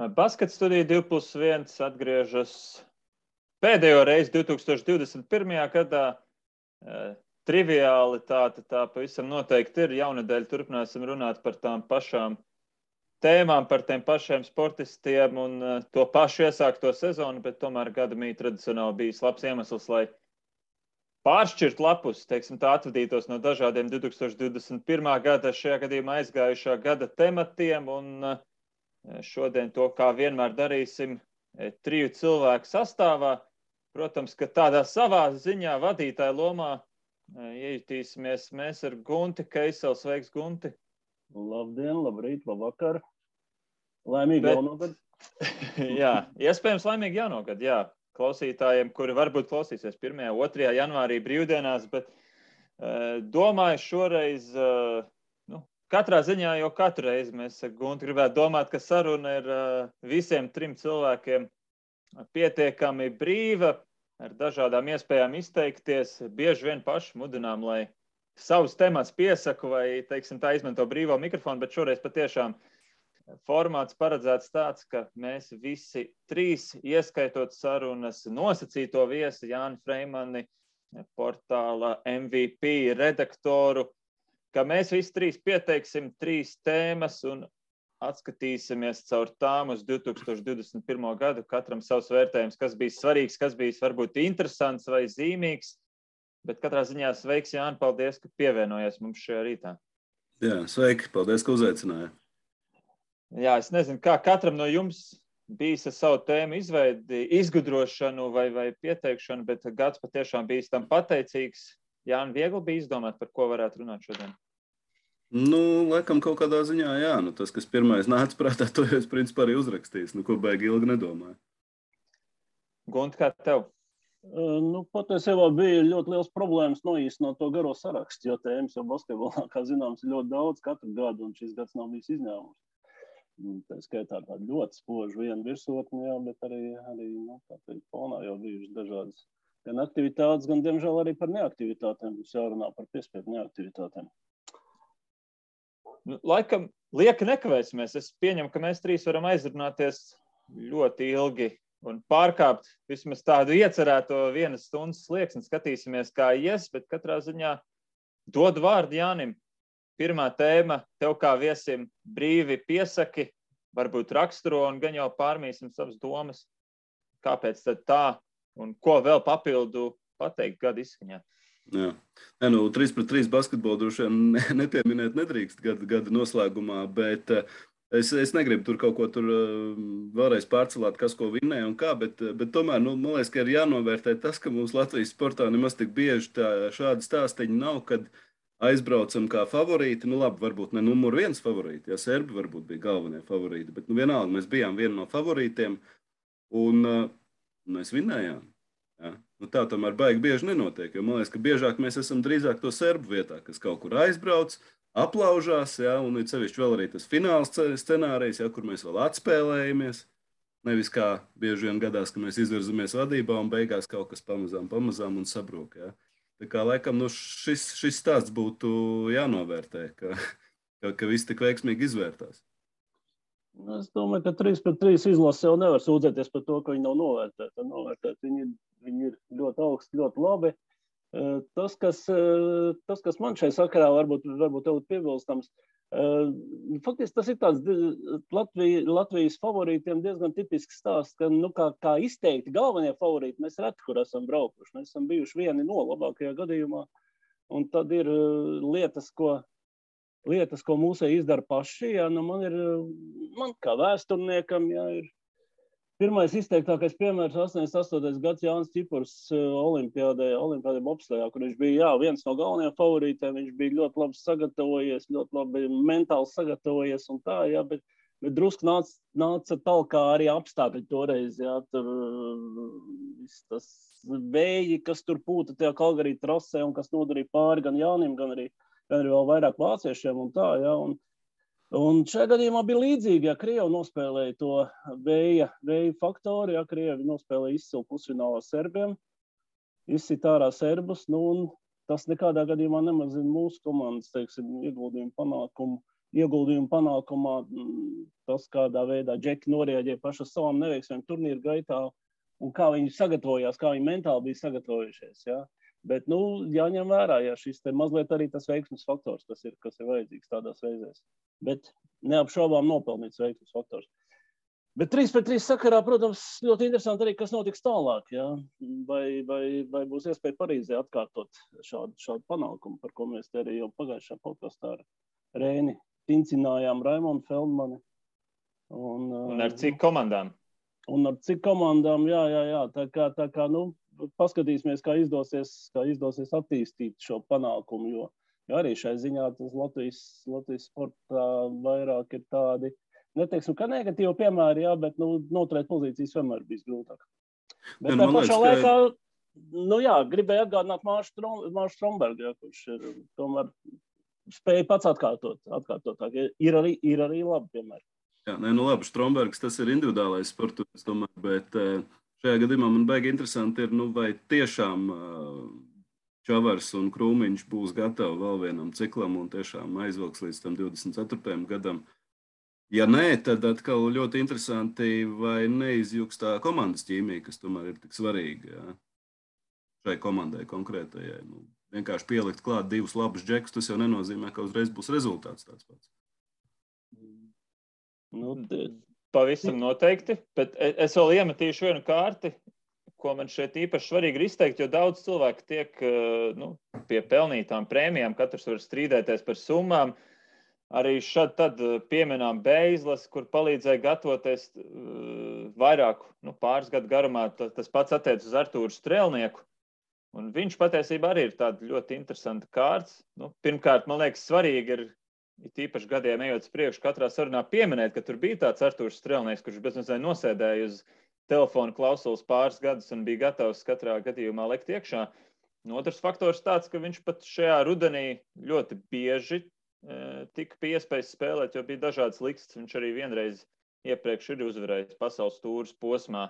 Baskets studija 2+1 atgriežas pēdējo reizi 2021. gadā. Triviālitāte tā pavisam noteikti ir. Jaunadēļ turpināsim runāt par tām pašām tēmām, par tiem pašiem sportistiem un to pašu iesākto sezonu, bet tomēr gadamī tradicionāli bijis labs iemesls, lai pāršķirt lapus, teiksim tā, atvadītos no dažādiem 2021. gada, šajā gadījumā aizgājušā gada tematiem, un šodien to, kā vienmēr darīsim, 3 cilvēku sastāvā. Protams, ka tādā savā ziņā vadītāja lomā iejutīsimies mēs ar Gunti Keiseli. Sveiks, Gunti! Labdien, labrīt, labvakar! Laimīgi jauno gadu! Jā, iespējams laimīgi jauno gadu, jā. Klausītājiem, kuri varbūt klausīsies 1. 2. janvārī brīvdienās, bet domāju šoreiz, katrā ziņā jau katru reizi mēs Gunti gribētu domāt, ka saruna ir visiem 3 cilvēkiem pietiekami brīva, ar dažādām iespējām izteikties. Bieži vien paši mudinām, lai savus temats piesaku vai, teiksim, tā izmanto brīvo mikrofonu, bet šoreiz patiešām formāts paredzēts tāds, ka mēs visi 3, ieskaitot sarunas nosacīto viesi Jāni Freimani, portāla MVP redaktoru, ka mēs visi 3 pieteiksim 3 tēmas un atskatīsimies caur tām uz 2021. gadu, katram savs vērtējums, kas bija svarīgs, kas bija varbūt interesants vai zīmīgs, bet katrā ziņā sveiks, Jāni, paldies, ka pievienojies mums šajā rītā. Jā, sveiki, paldies, ka uzaicināja. Jā, es nezinu, kā katram no jums bijis ar savu tēmu izveidi, izgudrošanu vai pieteikšanu, bet gads patiešām bijis tam pateicīgs. Jāni, viegli bija izdomāt, par ko varētu runāt šodien? Laikam kaut kādā ziņā, jā. Tas, kas pirmais nāca prātā, to jau es principā arī uzrakstījis. Ko baigi ilgi nedomāju. Gunti, kā tev? Patiesībā bija ļoti liels problēmas noīsināt to garo sarakstu, jo tēmas jau basketbolā, kā zināms, ir ļoti daudz katru gadu, un šis gads nav bijis izņēmums. Tā skaitā tāda ļoti spoža viena virsotne, jā, bet arī tā fonā jau bijušas dažādas gan aktivitātes, gan, diemžēl, arī par neaktivitātēm. Mums jārunā par piespiedu neaktivitātēm. Laikam, lieki nekavēsimies. Es pieņemu, ka mēs 3 varam aizrunāties ļoti ilgi un pārkāpt vismaz tādu iecerēto 1 stundas slieksni. Skatīsimies, kā ies, bet katrā ziņā dodu vārdu Jānim. Pirmā tēma tev kā viesim brīvi piesaki, varbūt raksturo un gan jau pārmīsim savas domas. Kāpēc tad tā un ko vēl papildu pateikt gada izskaņā? Jā. 3-3 basketbolu droši vien nepieminēt nedrīkst gada noslēgumā, bet es negribu tur kaut ko tur vēlreiz pārcelāt, kas ko vinnēja un kā, bet tomēr, man liekas, ka ir jānovērtē tas, ka mums Latvijas sportā nemaz tik bieži šādi stāstiņi nav, kad aizbraucam kā favorīti, labi, varbūt ne numur 1 favorīti, ja serbi varbūt bija galvenie favorīti, bet vienalga mēs bijām viena no favorītiem un mēs vinnējām. Ja? Tā tomēr baigi bieži nenotiek, jo man liekas, ka biežāk mēs esam drīzāk to serbu vietā, kas kaut kur aizbrauc, aplaužās, ja? Un ir sevišķi vēl arī tas fināls scenārijs, ja? Kur mēs vēl atspēlējamies. Nevis kā bieži vien gadās, ka mēs izvirzamies vadībā un beigās kaut kas pamazām un sabrūk. Ja? Tā kā laikam šis stāsts būtu jānovērtē, ka viss tik veiksmīgi izvērtās. Es domāju, ka 3-3 izlase jau nevar sūdzēties par to, ka viņi nav novērtēti. Viņi ir ļoti augsti, ļoti labi. Tas, kas man šai sakarā varbūt tev ir piebilstams, faktiski tas ir tāds Latvijas favorītiem diezgan tipisks stāsts, ka kā izteikti galvenie favorīti mēs reti, kur esam braukuši. Mēs esam bijuši vieni no labākajā gadījumā, un tad ir lietas, ko mūsēji izdara paši. Jā, man kā vēsturniekam, jā, ir pirmais izteiktākais piemērs 88. gads Jānis Čipurs olimpiādē bobslejā, kur viņš bija viens no galvenajiem favorītiem. Viņš bija ļoti labi sagatavojies, ļoti labi mentāli sagatavojies un tā, jā, bet drusku nāca talkā arī apstākļi toreiz. Jā, tur tas vēji, kas tur pūta tajā Kalgarī trasē un kas nodarīja pāri gan Jānim, gan arī vēl vairāk vāciešiem un tā, jā. Un šajā gadījumā bija līdzīgi, ja Krievi nospēlēja to vēja faktoru, ja Krievi nospēlēja izcilu pusfinālā serbiem, izsit ārā serbus, un tas nekādā gadījumā nemazina mūsu komandas, teiksim, ieguldījumu panākumā. tas, kādā veidā džeki norēģē paši uz savām neveiksmēm turnīru gaitā un kā viņi sagatavojās, kā viņi mentāli bija sagatavojušies. Ja? Bet, jāņem vērā, ja šis te mazliet arī tas veiksmes faktors, kas ir vajadzīgs tādās reizēs. Bet neapšaubām nopelnīts veiksmes faktors. Bet 3-3 sakarā, protams, ļoti interesanti arī, kas notiks tālāk. Ja? Vai būs iespēja Parīzē atkārtot šādu panākumu, par ko mēs te arī jau pagājušā podkastā ar Rēni tincinājām Raimondu Feldmani. Un ar cik komandām? Un ar cik komandām, jā. Tā kā paskatīsimies, kā izdosies attīstīt šo panākumu, jo arī šai ziņā tas Latvijas sportā vairāk ir tādi, neteiksim, ka negatīvi piemēri, jā, bet noturēt pozīcijas vienmēr bijis grūtāk. Bet tā pašā laikā, gribēju atgādināt Māršu Strombergu, ja, kurš ir tomēr spēja pats atkārtotāk. Ir arī labi piemēri. Jā, labi, Strombergs tas ir individuālais sports, es domāju, bet šajā gadījumā man baigi interesanti ir, vai tiešām Čavars un Krūmiņš būs gatavi vēl vienam ciklam un tiešām aizvilks līdz tam 24. gadam. Ja nē, tad atkal ļoti interesanti, vai neizjūgs tā komandas ķīmija, kas tomēr ir tik svarīga, jā, šai komandai konkrētajai. Vienkārši pielikt klāt divus labus džekus, tas jau nenozīmē, ka uzreiz būs rezultāts tāds pats. Pavisam noteikti, bet es vēl iemetīšu vienu kārti, ko man šeit īpaši svarīgi ir izteikt, jo daudz cilvēku tiek pie pelnītām prēmijām, katrs var strīdēties par summām. Arī šad tad pieminām Beizlas, kur palīdzēja gatavoties vairāku pāris gadu garumā. Tas pats attiec uz Artūru Strēlnieku. Un viņš patiesībā arī ir tāda ļoti interesanta kārts. Pirmkārt, man liekas, svarīgi ir tīpaši gadiem ejot uz priekšu katrā sarunā pieminēt, ka tur bija tāds Artūrs Strēlnieks, kurš bezmazliet nosēdēja uz telefona klausulas pāris gadus un bija gatavs katrā gadījumā lekt iekšā. Otrs faktors tāds, ka viņš pat šajā rudenī ļoti bieži tika pie iespējas spēlēt, jo bija dažādas likstas. Viņš arī vienreiz iepriekš ir uzvarējis pasaules tūras posmā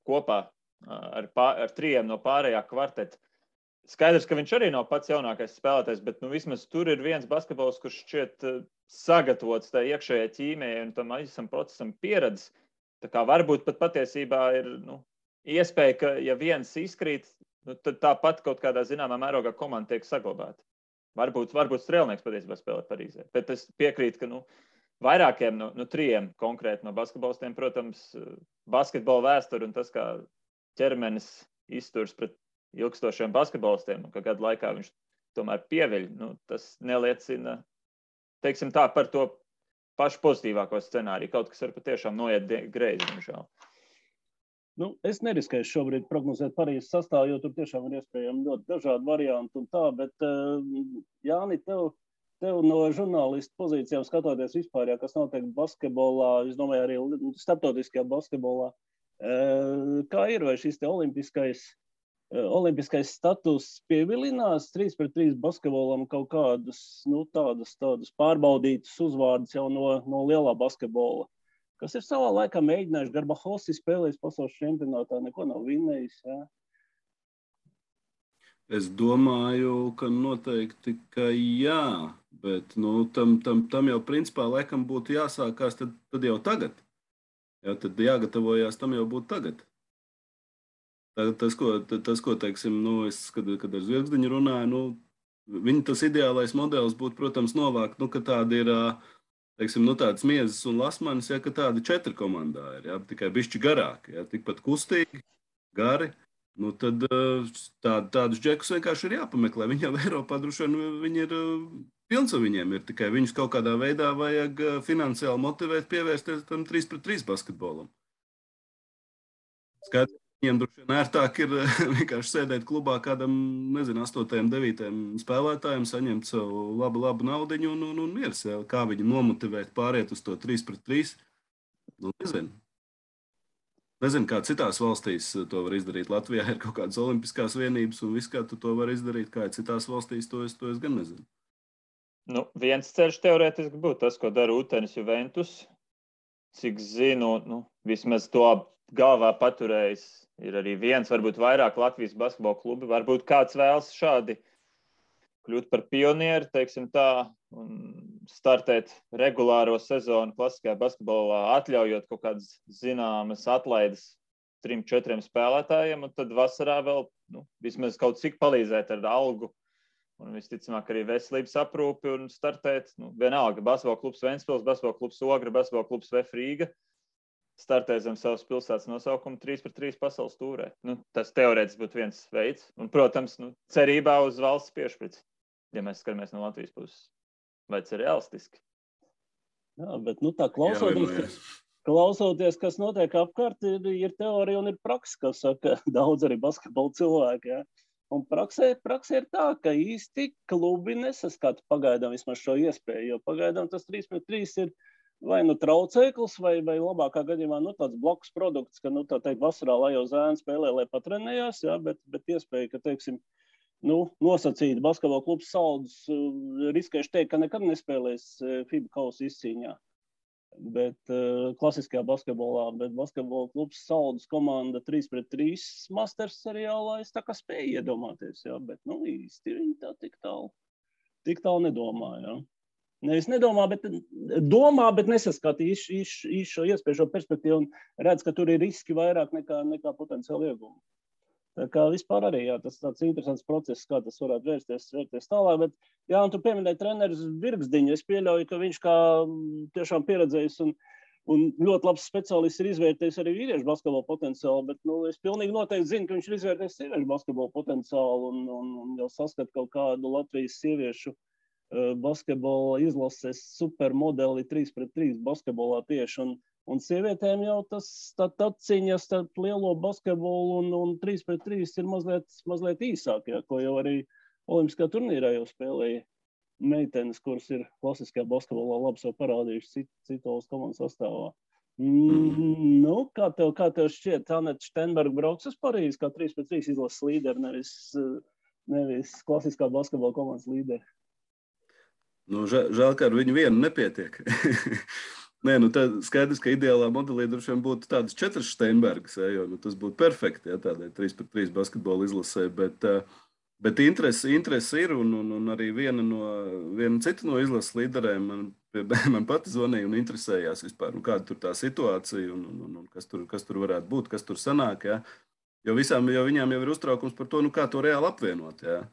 kopā ar trijiem no pārējā kvarteta. Skaidrs, ka viņš arī nav pats jaunākais spēlētājs, bet vismaz tur ir viens basketbols, kurš šķiet sagatavots tā iekšējai ķīmijai un tam visam procesam pieredzes. Tā kā varbūt pat patiesībā ir iespēja, ka ja viens izkrīt, tad tāpat kaut kādā zināmā mērogā komanda tiek saglabāta. Varbūt Strēlnieks patiesībā spēlē Parīzē. Bet es piekrītu, ka vairākiem trijiem konkrēti no basketbolistiem, protams, basketbola vēsture un tas, kā ķermenis izturs pret ilgstošiem basketbolistiem, un ka gadu laikā viņš tomēr pieviļ, tas neliecina, teiksim tā, par to pašu pozitīvāko scenāriju. Kaut kas var patiešām noiet greizi, diemžēl. Es neriskēšu šobrīd prognozēt Parīzes sastāvu, jo tur tiešām ir iespējami ļoti dažādi varianti un tā, bet Jāni, tev no žurnālistu pozīcijām skatoties vispār, kas notiek basketbolā, es domāju arī starptautiskajā basketbolā, kā ir, vai šis te olimpiskais status pievilinās 3-3 basketbolam kaut kādus, tādus pārbaudītus uzvārdus jau no lielā basketbola, kas ir savā laikā mēģinājuši. Garbahosi spēlējis pasaules čempionātā, neko nav vinnējis. Ja? Es domāju, ka noteikti, ka jā, bet tam jau principā laikam būtu jāsākās tad jau tagad. Jā, tad jāgatavojās tam jau būtu tagad. Tas, ko teiksim, kad ar Zvirgzdiņu runāju, viņa tas ideālais modelis būtu, protams, novākt, ka tādi ir, teiksim, tādas Miezes un Lasmanis, ja, ka tādi 4 komandā ir, ja, tikai bišķi garāki, ja, tikpat kustīgi, gari, tad tādus džekus vienkārši ir jāpameklē. Viņi jau Eiropā droši vien viņi ir pilns, un viņiem ir tikai viņus kaut kādā veidā vajag finansiāli motivēt, pievērsties tam 3-3 basketbolam. Skaidrs. Viņiem droši vien ērtāk ir vienkārši sēdēt klubā kādam, 8, 9 spēlētājiem, saņemt savu labu naudiņu un miers. Ja? Kā viņi nomotivēt pāriet uz to 3-3? Nezinu, kā citās valstīs to var izdarīt. Latvijā ir kaut kādas olimpiskās vienības un viss, kā tu to var izdarīt. Kā citās valstīs, to es gan nezinu. Viens ceļš teorētiski būtu tas, ko dara Utenis Juventus. Cik zinu, vismaz to galvā paturējis. Ir arī viens, varbūt vairāk Latvijas basketbola klubi. Varbūt kāds vēlas šādi kļūt par pionieri, teiksim tā, un startēt regulāro sezonu klasiskajā basketbolā, atļaujot kaut kādas zināmas atlaides 3-4 spēlētājiem, un tad vasarā vēl vismaz kaut cik palīdzēt ar algu un visticamāk arī veselības aprūpi un startēt. Vienalga, basketbola klubs Ventspils, basketbola klubs Ogra, basketbola klubs VF Rīga startē zem savas pilsētas nosaukuma 3-3 pasaules tūrē. Tas teorētiski būtu viens veids. Un, protams, cerībā uz valsts piešprici, ja mēs skatāmies no Latvijas puses. Vai tas ir realistiski? Jā, bet tā klausoties, kas notiek apkārt, ir teorija un ir praksa, kas saka daudz arī basketbola cilvēki. Ja? Un praksē ir tā, ka īsti klubi nesaskata pagaidām vismaz šo iespēju, jo pagaidām tas 3-3 ir vai traucēklis, vai labākā gadījumā tāds blakus produkts, ka, tā teikt, vasarā, lai jau zēni spēlē, lai patrenējās, ja? bet iespēja, ka, teiksim, nosacīt basketbola klubs Saldus, riskējuši teikt, ka nekad nespēlēs FIBA kausa izcīņā. Bet klasiskajā basketbolā, bet basketbola klubs Saldus komanda 3-3 masters seriālā es tā kā spēju iedomāties, ja? Bet īsti viņi tā tik tālu nedomā. Ja? Nevis nedomā, bet domā, bet nesaskata šo iespēju, šo perspektīvu un redz, ka tur ir riski vairāk nekā potenciāli iegumi. Tā kā vispār arī, jā, tas tāds interesants process, kā tas varētu vērsties tālāk, bet, jā, un tu pieminēji treneris Virgsdiņu, es pieļauju, ka viņš kā tiešām pieredzējis un ļoti labs speciālists ir izvērtējis arī vīriešu basketbola potenciālu, bet, es pilnīgi noteikti zinu, ka viņš ir izvērtējis sieviešu basketbola potenciālu un jau saskat kaut kādu Latvijas sieviešu basketbola izlases supermodeli 3-3 basketbolā tieši, un sievietēm jau tas atciņas starp lielo basketbolu un 3-3 ir mazliet īsāk, ja, ko jau arī olimpiskā turnīrā jau spēlēja meitenes, kuras ir klasiskajā basketbolā labi sev parādījuši citos komandas sastāvā. Kā tev šķiet, Aneta Štenberga brauks uz Parīzi kā 3-3 izlases līderi, nevis klasiskā basketbola komandas līderi? Žēl, ka ar viņu vienu nepietiek. Nē, tad skaidrs, ka ideālā modelī droši vien būtu tādas 4 Steinbergas, jo tas būtu perfekti, ja, tādai 3-3 basketbola izlasē, bet interesi ir, un arī viena cita no izlases līderēm man pati zvanīja un interesējās vispār, kāda tur tā situācija un kas tur varētu būt, kas tur sanāk, ja, jo viņām jau ir uztraukums par to, kā to reāli apvienot, ja.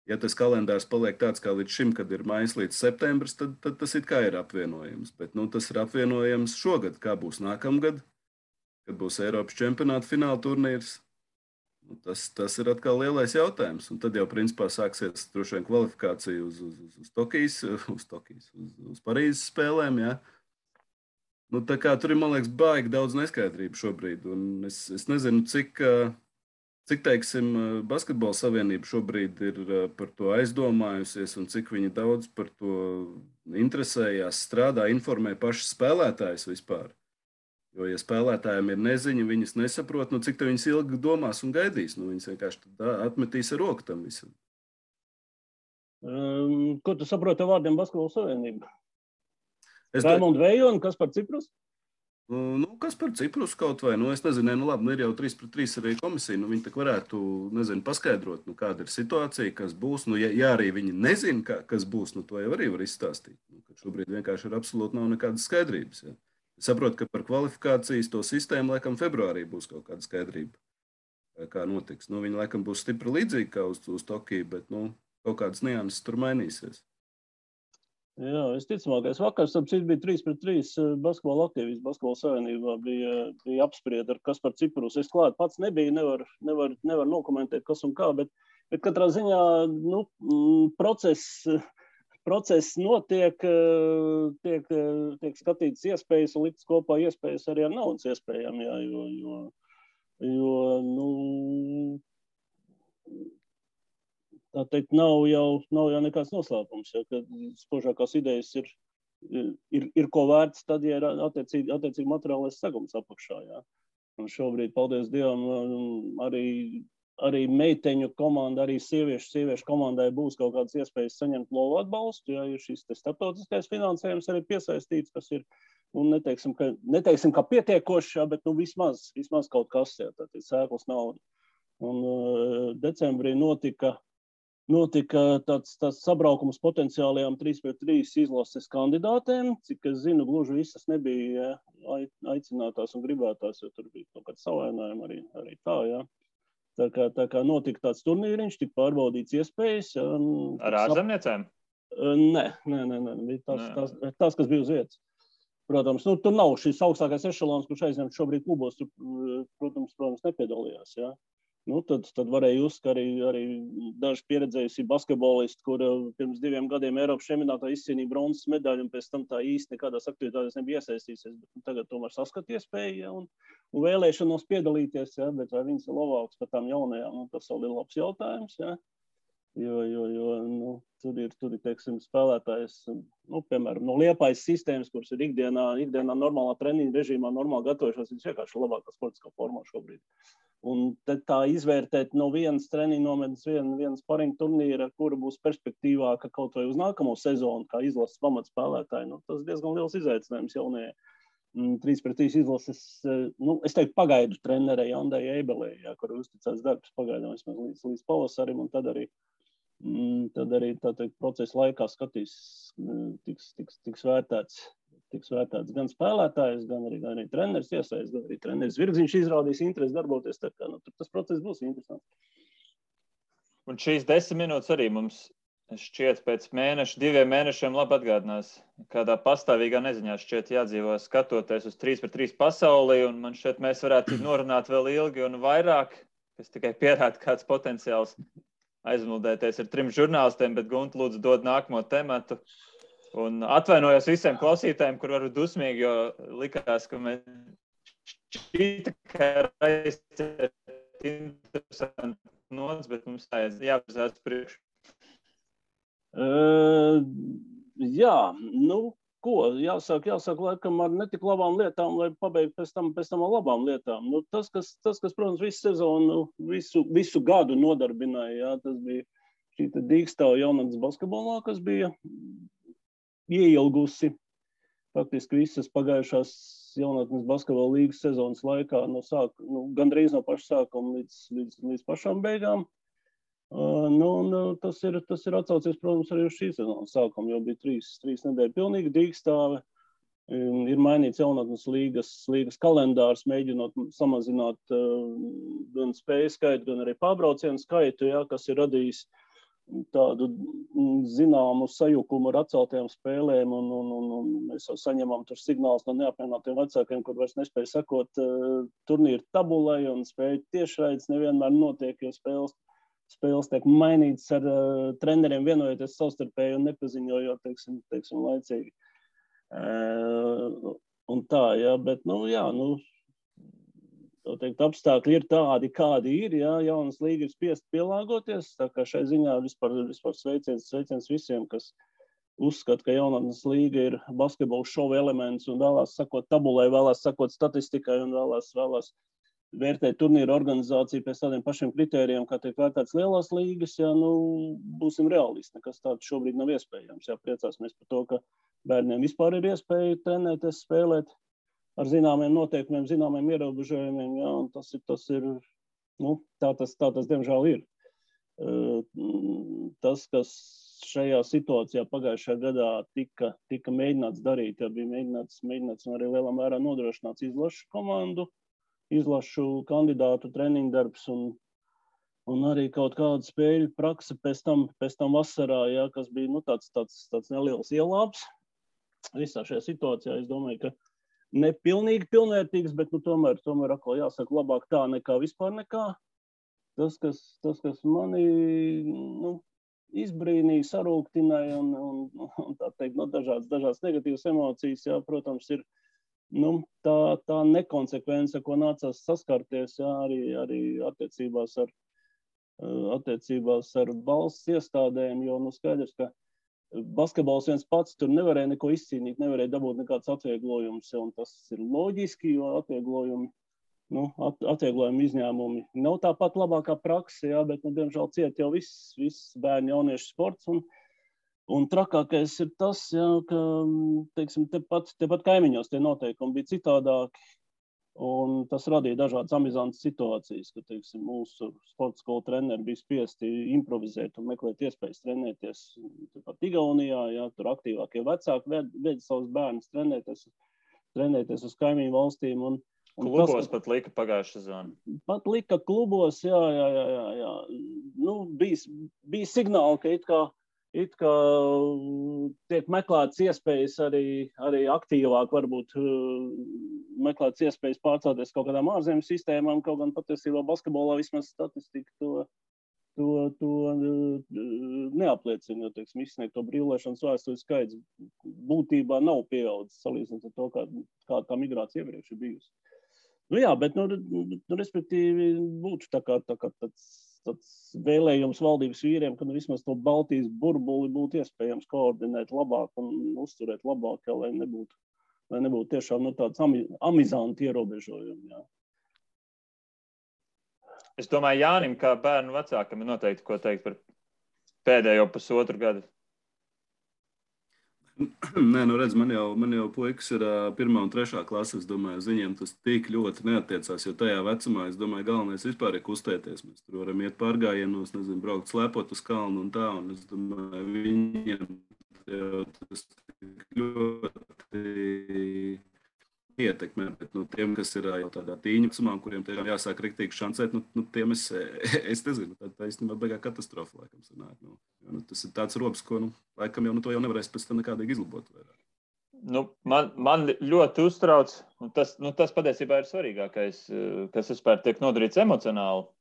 Ja tas kalendārs paliek tāds kā līdz šim, kad ir maijs līdz septembris, tad tas it kā ir apvienojams. Bet tas ir apvienojams šogad, kā būs nākamgad, kad būs Eiropas čempionāta fināla turnīrs. Tas ir atkal lielais jautājums. Un tad jau principā sāksies droši vien kvalifikācija uz Parīzes spēlēm. Ja? Tā kā tur ir, man liekas, baigi daudz neskaidrību šobrīd. Un es nezinu, cik teiksim, Basketbola savienība šobrīd ir par to aizdomājusies un cik viņi daudz par to interesējās, strādā, informē pašas spēlētājas vispār. Jo, ja spēlētājiem ir neziņa, viņas nesaprot, cik te viņas ilgi domās un gaidīs. Viņas vienkārši atmetīs ar roku tam visam. Ko tu saproti ar vārdiem Basketbola savienība? Raimonda Vejo un Kaspar Ciprus? Kas par Ciprus kaut vai, es nezinu, labi, ir jau 3-3 arī komisija, viņi tak varētu, paskaidrot, kāda ir situācija, kas būs, ja arī viņi nezina, kas būs, to jau arī var izstāstīt, ka šobrīd vienkārši ir absolūti nav nekādas skaidrības, ja. Es saprotu, ka par kvalifikācijas to sistēmu, laikam, februārī būs kaut kāda skaidrība, kā notiks, viņi, laikam, būs stipri līdzīgi kā uz Tokiju, bet, kaut kādas nianses tur mainīsies. Jā, visticamākais vakars, bija 3-3 basketbola aktīvists Basketbola savienībā, bija apsprieda ar Kaspar Ciprus. Es klāt pats nebiju, nevar nokomentēt, kas un kā, bet katrā ziņā, process notiek, tiek skatīts iespējas un liktas kopā iespējas arī ar naudas iespējām, jā, jo tā teikt, nav jau nekāds noslēpums, ja, ka spožākās idejas ir ko vērts tad, ja ir attiecīgi materiālais segums apakšā. Ja. Un šobrīd, paldies Dievam, arī meiteņu komanda, arī sieviešu komandai būs kaut kādas iespējas saņemt lovu atbalstu, ja ir šis starptautiskais finansējums arī piesaistīts, kas ir, neteiksim, ka pietiekošs, ja, bet vismaz kaut kas, ja, tad ir sēklas nauda. Un decembrī notika notika tāds sabraukums potenciālajām 3-3 izlases kandidātēm, cik es zinu, gluži visas nebija aicinātās un gribētās, jo tur bija kaut kāds savainājumi arī tā, jā. Tā kā notika tāds turnīriņš, tika pārbaudīts iespējas. Jā, ar ārzemniecēm? Nē, bija tās, kas bija uz vietas. Protams, tur nav šis augstākais ešalons, kurš aizņemt šobrīd klubos, tur, protams, nepiedalījās, jā. Tad varēja just, ka arī daži pieredzējusi basketbolisti, kur pirms 2 gadiem Eiropas čempionātā izcīnīja bronzas medaļu un pēc tam tā īsti nekādās aktivitātēs nebija iesaistīsies, bet tagad tomēr saskat iespēju, ja, un vēlēšanos piedalīties, ja, bet vai viņas ir labāks par tām jaunajām, tas vēl ir labs jautājums, ja, jo tur ir, teiksim, spēlētājs, piemēram, no Liepājas sistēmas, kuras ir ikdienā normālā treniņa režīmā, normāli gatavojušās, viņš vienkārši labākā sportiskā formā šobrīd. Un tad tā izvērtēt no vienas treniņa nometnes, vienas paringa turnīra, kura būs perspektīvāka kaut vai uz nākamo sezonu, kā izlases pamatspēlētāji, tas diezgan liels izaicinājums jaunajai 3-3 izlases, es teiktu, pagaidu trenerei Andai Eibelei, kur uzticēts darbs pagaidām vismaz līdz pavasarim, un tad arī tā teikt, procesa laikā skatīs, tiks vērtēts gan spēlētājs, gan arī treneris iesaist, gan arī treneris Virgziņš izrādīs interesi darboties, tā kā tas process būs interesants. Un šīs 10 minūtes arī mums šķiet pēc 2 mēnešiem labi atgādinās, kādā pastāvīgā neziņā šķiet jādzīvo skatoties uz 3-3 pasaulī, un man šķiet mēs varētu norunāt vēl ilgi un vairāk, kas tikai pierāda kāds potenciāls aizmuldēties ar 3 žurnālistiem, bet Gunta lūdzu dod nākamo tematu. Un atvainojos visiem klausītājiem, kur varu dusmīgi, jo likās, ka mēs šķita, ka raizēt interesanti nots, bet mums jāpazās priekš. Jā, jāsāk laikam ar netik labām lietām, lai pabeigtu pēc tam ar labām lietām. Tas, kas, protams, visu sezonu, visu gadu nodarbināja, jā, tas bija šī Dīkstava jaunatnes basketbolā, kas bija ieilgusi faktiski visas pagājušās jaunatnes basketbola līgas sezonas laikā, gandrīz no paša sākuma līdz pašām beigām. Tas ir atsaucies, protams, arī uz šī sezonas sākumu, jo bija 3 nedēļu pilnīgi Dīkstave. Ir mainīts jaunatnes līgas kalendārs, mēģinot samazināt gan spēju skaitu, gan arī pārbraucienu skaitu, jā, kas ir radījis tādu zināmu sajukumu ar atceltajām spēlēm, un mēs jau saņemam tur signālus no neapmienātiem vecākiem, kur vairs nespēja sekot turnīru tabulai, un spēju tiešraides nevienmēr notiek, jo spēles tiek mainītas ar treneriem vienojoties savstarpēji un nepaziņojot, teiksim, laicīgi. Un tā, jā, bet, apstākļi ir tādi, kādi ir, jā, jaunas līga ir spiest pielāgoties, tā kā šai ziņā vispār sveiciens visiem, kas uzskata, ka jaunatnes līga ir basketbola šova elements un vēlās sakot tabulai, vēlās sakot statistikai un vēlās vērtēt turnīru organizāciju pēc tādiem pašiem kritērijiem, kā tiek vērtēts lielās līgas, jā, būsim realisti, nekas tāds šobrīd nav iespējams, jā, priecāsimies par to, ka bērniem vispār ir iespēja trenēties, spēlēt ar zināmiem noteikumiem, zināmiem ierobežojumiem, jā, un tas ir, tā tas diemžēl ir. Tas, kas šajā situācijā pagājušajā gadā tika mēģināts darīt, ja bija mēģināts un arī lielā mērā nodrošināts izlašu komandu, izlašu kandidātu treniņu darbs un arī kaut kāda spēļu prakse pēc tam vasarā, jā, kas bija tāds neliels ielāps. Visā šajā situācijā es domāju, ka ne pilnīgi pilnvērtīgs, bet tomēr atkal jāsaka labāk tā nekā vispār nekā. Tas, kas mani izbrīnīja, sarūktināja un tā teikt, dažādas negatīvas emocijas, jā, protams, ir tā nekonsekvence, ko nācās saskarties, jā, arī attiecībās ar valsts iestādēm, jo skaidrs, ka basketbols viens pats tur nevarēja neko izcīnīt, nevarēja dabūt nekāds atvieglojums, un tas ir loģiski, jo atvieglojumi izņēmumi nav tāpat labākā prakse, jā, bet, diemžēl ciet jau viss bērnu jauniešu sports, un trakākais ir tas, jā, ka, teiksim, tepat kaimiņos tie noteikumi bija citādāki, Un tas radīja dažādas amizantas situācijas, ka, teiksim, mūsu sporta skolu treneri bija spiesti improvizēt un meklēt iespējas trenēties pat Igaunijā, ja, tur aktīvākie vecāki ved savus bērnus trenēties uz kaimiņu valstīm. Un klubos pat lika pagājušā sezona. Pat lika klubos, jā. Nu, bija signāli, ka it kā tiek meklētas iespējas arī aktīvāk, varbūt meklētas iespējas pārcelties kaut kādām ārzemju sistēmām, kaut gan patiesībā basketbolā vismaz statistika to neapliecina, jo, teiksim, izsniegto brīvlēšanas vēstuļu skaits būtībā nav pieaudzis salīdzinot ar to, kā tā migrācija iepriekš ir bijusi. Nu jā, bet, respektīvi, būtu tā kā tāds vēlējums valdības vīriem, ka vismaz to Baltijas burbuli būtu iespējams koordinēt labāk un uzturēt labāk, lai nebūtu tiešām tāds amizanti ierobežojumi. Jā. Es domāju, Jānim, kā bērnu vecākam, ir noteikti ko teikt par pēdējo pusotru gadu. Nē, redz, man jau puikas ir 1. un 3. klase, es domāju, uz viņiem tas tik ļoti neattiecās, jo tajā vecumā, es domāju, galvenais vispār ir kustēties. Mēs tur varam iet pārgājienos, nezinu, braukt slēpot uz kalnu un tā, un es domāju, viņiem jau tas tik ļoti ietekmē, bet tiem, kas ir jau tādā tīņa vecumā, kuriem tiešām jāsāk riktīgi šancēt, tiem es nezinu, tā īstenībā beigā katastrofa, laikam, sanāk. Tas ir tāds robs, ko, laikam, to jau nevarēs pēc tam nekādīgi izlabot. Man ļoti uztrauc, un tas patiesībā ir svarīgākais, kas vispār tiek nodarīts emocionāli.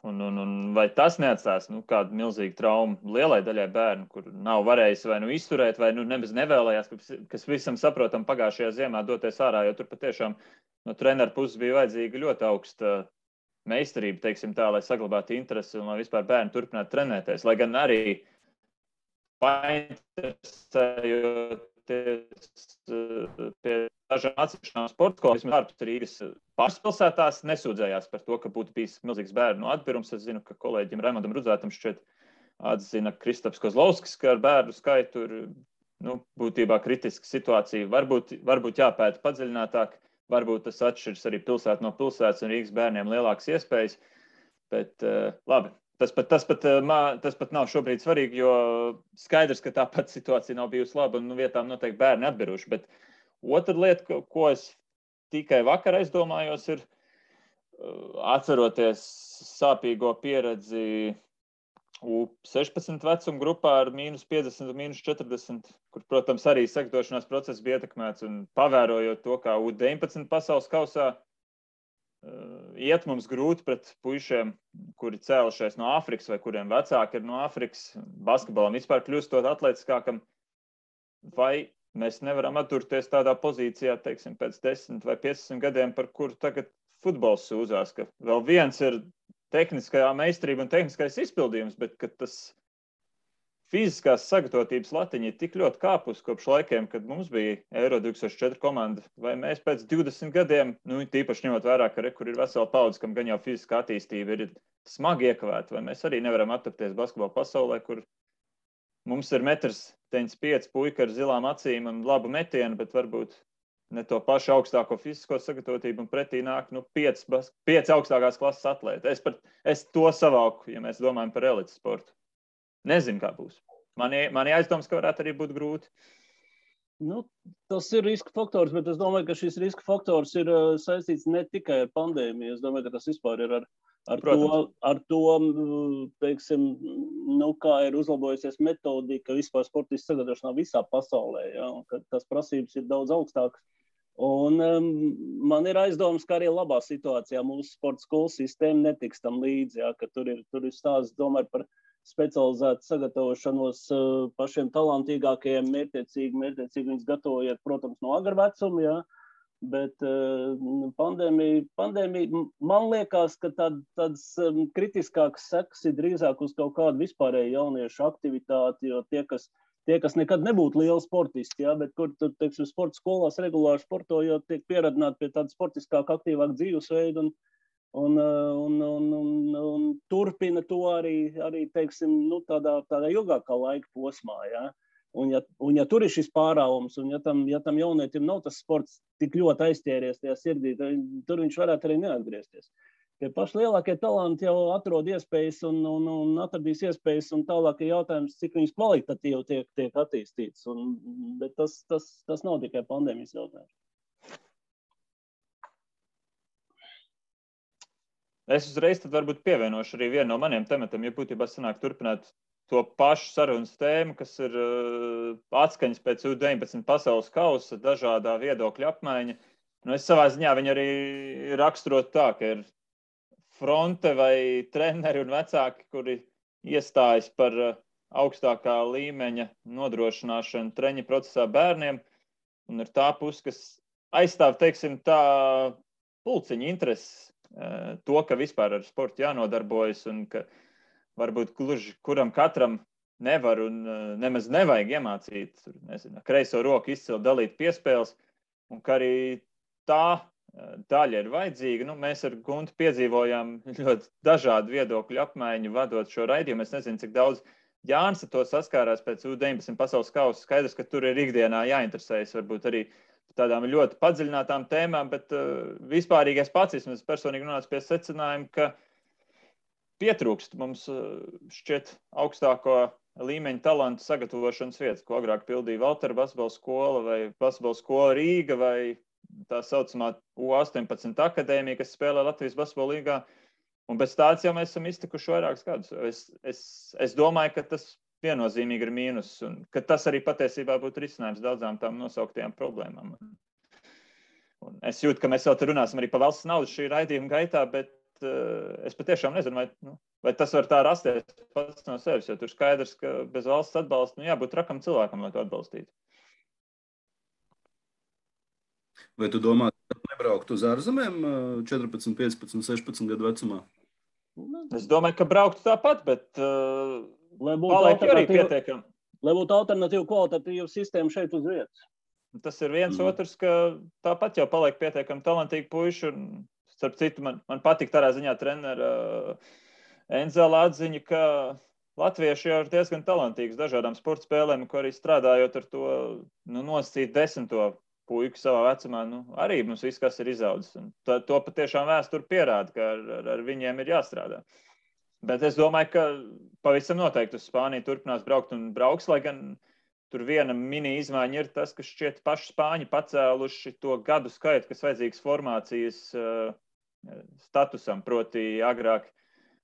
Un vai tas neatstās kādu milzīgu traumu lielai daļai bērnu, kur nav varējis vai izturēt, vai nemaz nevēlējās, kas visam saprotam pagājušajā ziemā doties ārā, jo tur patiešām no treneru puses bija vajadzīga ļoti augsta meistarība, teiksim tā, lai saglabātu interesi un lai vispār bērni turpinātu trenēties. Lai gan arī painteresējoties pie dažām atsevišķām sporta skolām, vismaz ārpus Rīgas pārspilsētās, nesūdzējās par to, ka būtu bijis milzīgs bērnu atbirums. Es zinu, ka kolēģim Raimondam Rudzētam šķiet atzina Kristaps Kozlovskis, ka ar bērnu skaitu ir būtībā kritiska situācija. Varbūt jāpēta padziļinātāk, varbūt tas atšķiras arī pilsētu no pilsētas un Rīgas bērniem lielākas iespējas, bet labi. Tas pat nav šobrīd svarīgi, jo skaidrs, ka tāpat situācija nav bijusi laba un vietām noteikti bērni atbiruši. Bet otra lieta, ko es tikai vakar aizdomājos, ir atceroties sāpīgo pieredzi U16 vecuma grupā ar -50 un -40, kur, protams, arī sagatavošanās process bija ietekmēts un pavērojot to, kā U19 pasaules kausā iet mums grūti pret puišiem, kuri cēlušies no Āfrikas vai kuriem vecāki ir no Āfrikas, basketbolam vispār kļūstot atletiskākam, vai mēs nevaram atturēties tādā pozīcijā, teiksim, pēc 10 vai 15 gadiem, par kuru tagad futbols sūdzās, ka vēl viens ir tehniskajā meistarība un tehniskais izpildījums, bet ka tas fiziskās sagatavotības latiņa ir tik ļoti kāpus kopš laikiem, kad mums bija Euro 2004 komanda, vai mēs pēc 20 gadiem, tīpaši ņemot vērā, ka kur ir vesela paudze, kam gan jau fiziskā attīstība ir smagi iekavēta, vai mēs arī nevaram attapties basketbola pasaulē, kur mums ir 1,95 m puika ar zilām acīm un labu metienu, bet varbūt ne to pašu augstāko fizisko sagatavotību un pretī nāk 5 augstākās klases atlēti. Es to savāku, ja mēs domājam par elites sportu. Nezinu, kā būs. Mani aizdomas, ka varētu arī būt grūti. Tas ir riska faktors, bet es domāju, ka šis riska faktors ir saistīts ne tikai ar pandēmiju. Es domāju, ka tas vispār ir ar to, teiksim, kā ir uzlabojusies metodika vispār sportistu sagatavošanā visā pasaulē, ja, un ka tas prasības ir daudz augstākas. Un man ir aizdomas, ka arī labā situācijā mūsu sporta skolu sistēma netiks tam līdzi, ja, ka tur ir stāsts, domāju, par specializētu sagatavošanos pašiem talantīgākajiem, mērķiecīgi viņus gatavojiet, protams, no agra vecuma, ja, bet pandēmija, man liekas, ka tādas kritiskākas sekas ir drīzāk uz kaut kādu vispārēju jauniešu aktivitāti, jo tie, kas nekad nebūtu lieli sportisti, ja, bet kur, teiksim, sporta skolās regulāri sportojot, tiek pieradināti pie tāda sportiskāka, aktīvāka dzīvesveida un turpina to arī teiksim, tādā ilgākā laika posmā, ja. Un ja tur ir šis pārāvums, un ja tam jaunietim nav tas sports tik ļoti aizķēries tajā sirdī, tur viņš varētu arī neatgriezties. Tie paši lielākie talanti jau atrod iespējas un atradīs iespējas, un tālāk ir jautājums, cik viņas kvalitatīvi tiek attīstīts. Bet tas nav tikai pandēmijas jautājums. Es uzreiz tad varbūt pievienošu arī vienu no maniem tematiem, ja būtībā sanāk turpināt to pašu sarunas tēmu, kas ir atskaņas pēc U19 pasaules kausa, dažādā viedokļa apmaiņa. Es savā ziņā viņu arī raksturot tā, ka ir fronte vai treneri un vecāki, kuri iestājas par augstākā līmeņa nodrošināšanu treņa procesā bērniem, un ir tā puse, kas aizstāv, teiksim, tā pulciņa intereses, to, ka vispār ar sportu jānodarbojas un ka varbūt gluži kuram katram nevar un nemaz nevajag iemācīt, nezinu, kreiso roku izcelt, dalīt piespēles, un ka arī tā daļa ir vajadzīga. Mēs ar Guntu piedzīvojām ļoti dažādu viedokļu apmaiņu, vadot šo raidījumu. Es nezinu, cik daudz Jānis ar to saskārās pēc U19 pasaules kausa. Skaidrs, ka tur ir ikdienā jāinteresējas varbūt arī tādām ļoti padziļinātām tēmām, bet vispārīgais pats, es personīgi nonācu pie secinājuma, ka pietrūkst mums šķiet augstāko līmeņa talantu sagatavošanas vietas, ko agrāk pildīja Valtera basketbola skola vai basketbola skola Rīga vai tā saucamā U18 akadēmija, kas spēlē Latvijas basketbola līgā. Un bez tāds jau mēs esam iztikuši vairākus gadus. Es domāju, ka tas viennozīmīgi ir mīnus un ka tas arī patiesībā būtu risinājums daudzām tām nosauktajām problēmām. Un es jūtu, ka mēs vēl te runāsim arī par valsts naudu šī raidījuma gaitā, bet es patiešām nezinu, vai tas var tā rasties pats no sevis, jo tur skaidrs, ka bez valsts atbalsta jābūt trakam cilvēkam, lai to atbalstītu. Vai tu domā, ka nebraukt uz ārzemēm 14, 15, 16 gadu vecumā? Es domāju, ka braukt tāpat, bet paliek arī pietiekami. Lai būtu alternatīva kvalitatīva sistēma šeit uz vietas. Tas ir viens otrs, ka tāpat jau paliek pietiekami talantīgi puiši. Starp citu, man patīk tādā ziņā trenera Enzela atziņa, ka latvieši jau ir diezgan talantīgs dažādām sporta spēlēm, ko arī strādājot ar to nosacīt 10. puiku savā vecumā, arī mums viss, kas ir izaudzis. Un to patiešām vēsture pierāda, ka ar viņiem ir jāstrādā. Bet es domāju, ka pavisam noteikti uz Spāniju turpinās braukt un brauks, lai gan tur viena mini izmaiņa ir tas, ka šķiet paši Spāņi pacēluši to gadu skaitu, kas vajadzīgs formācijas statusam, proti agrāk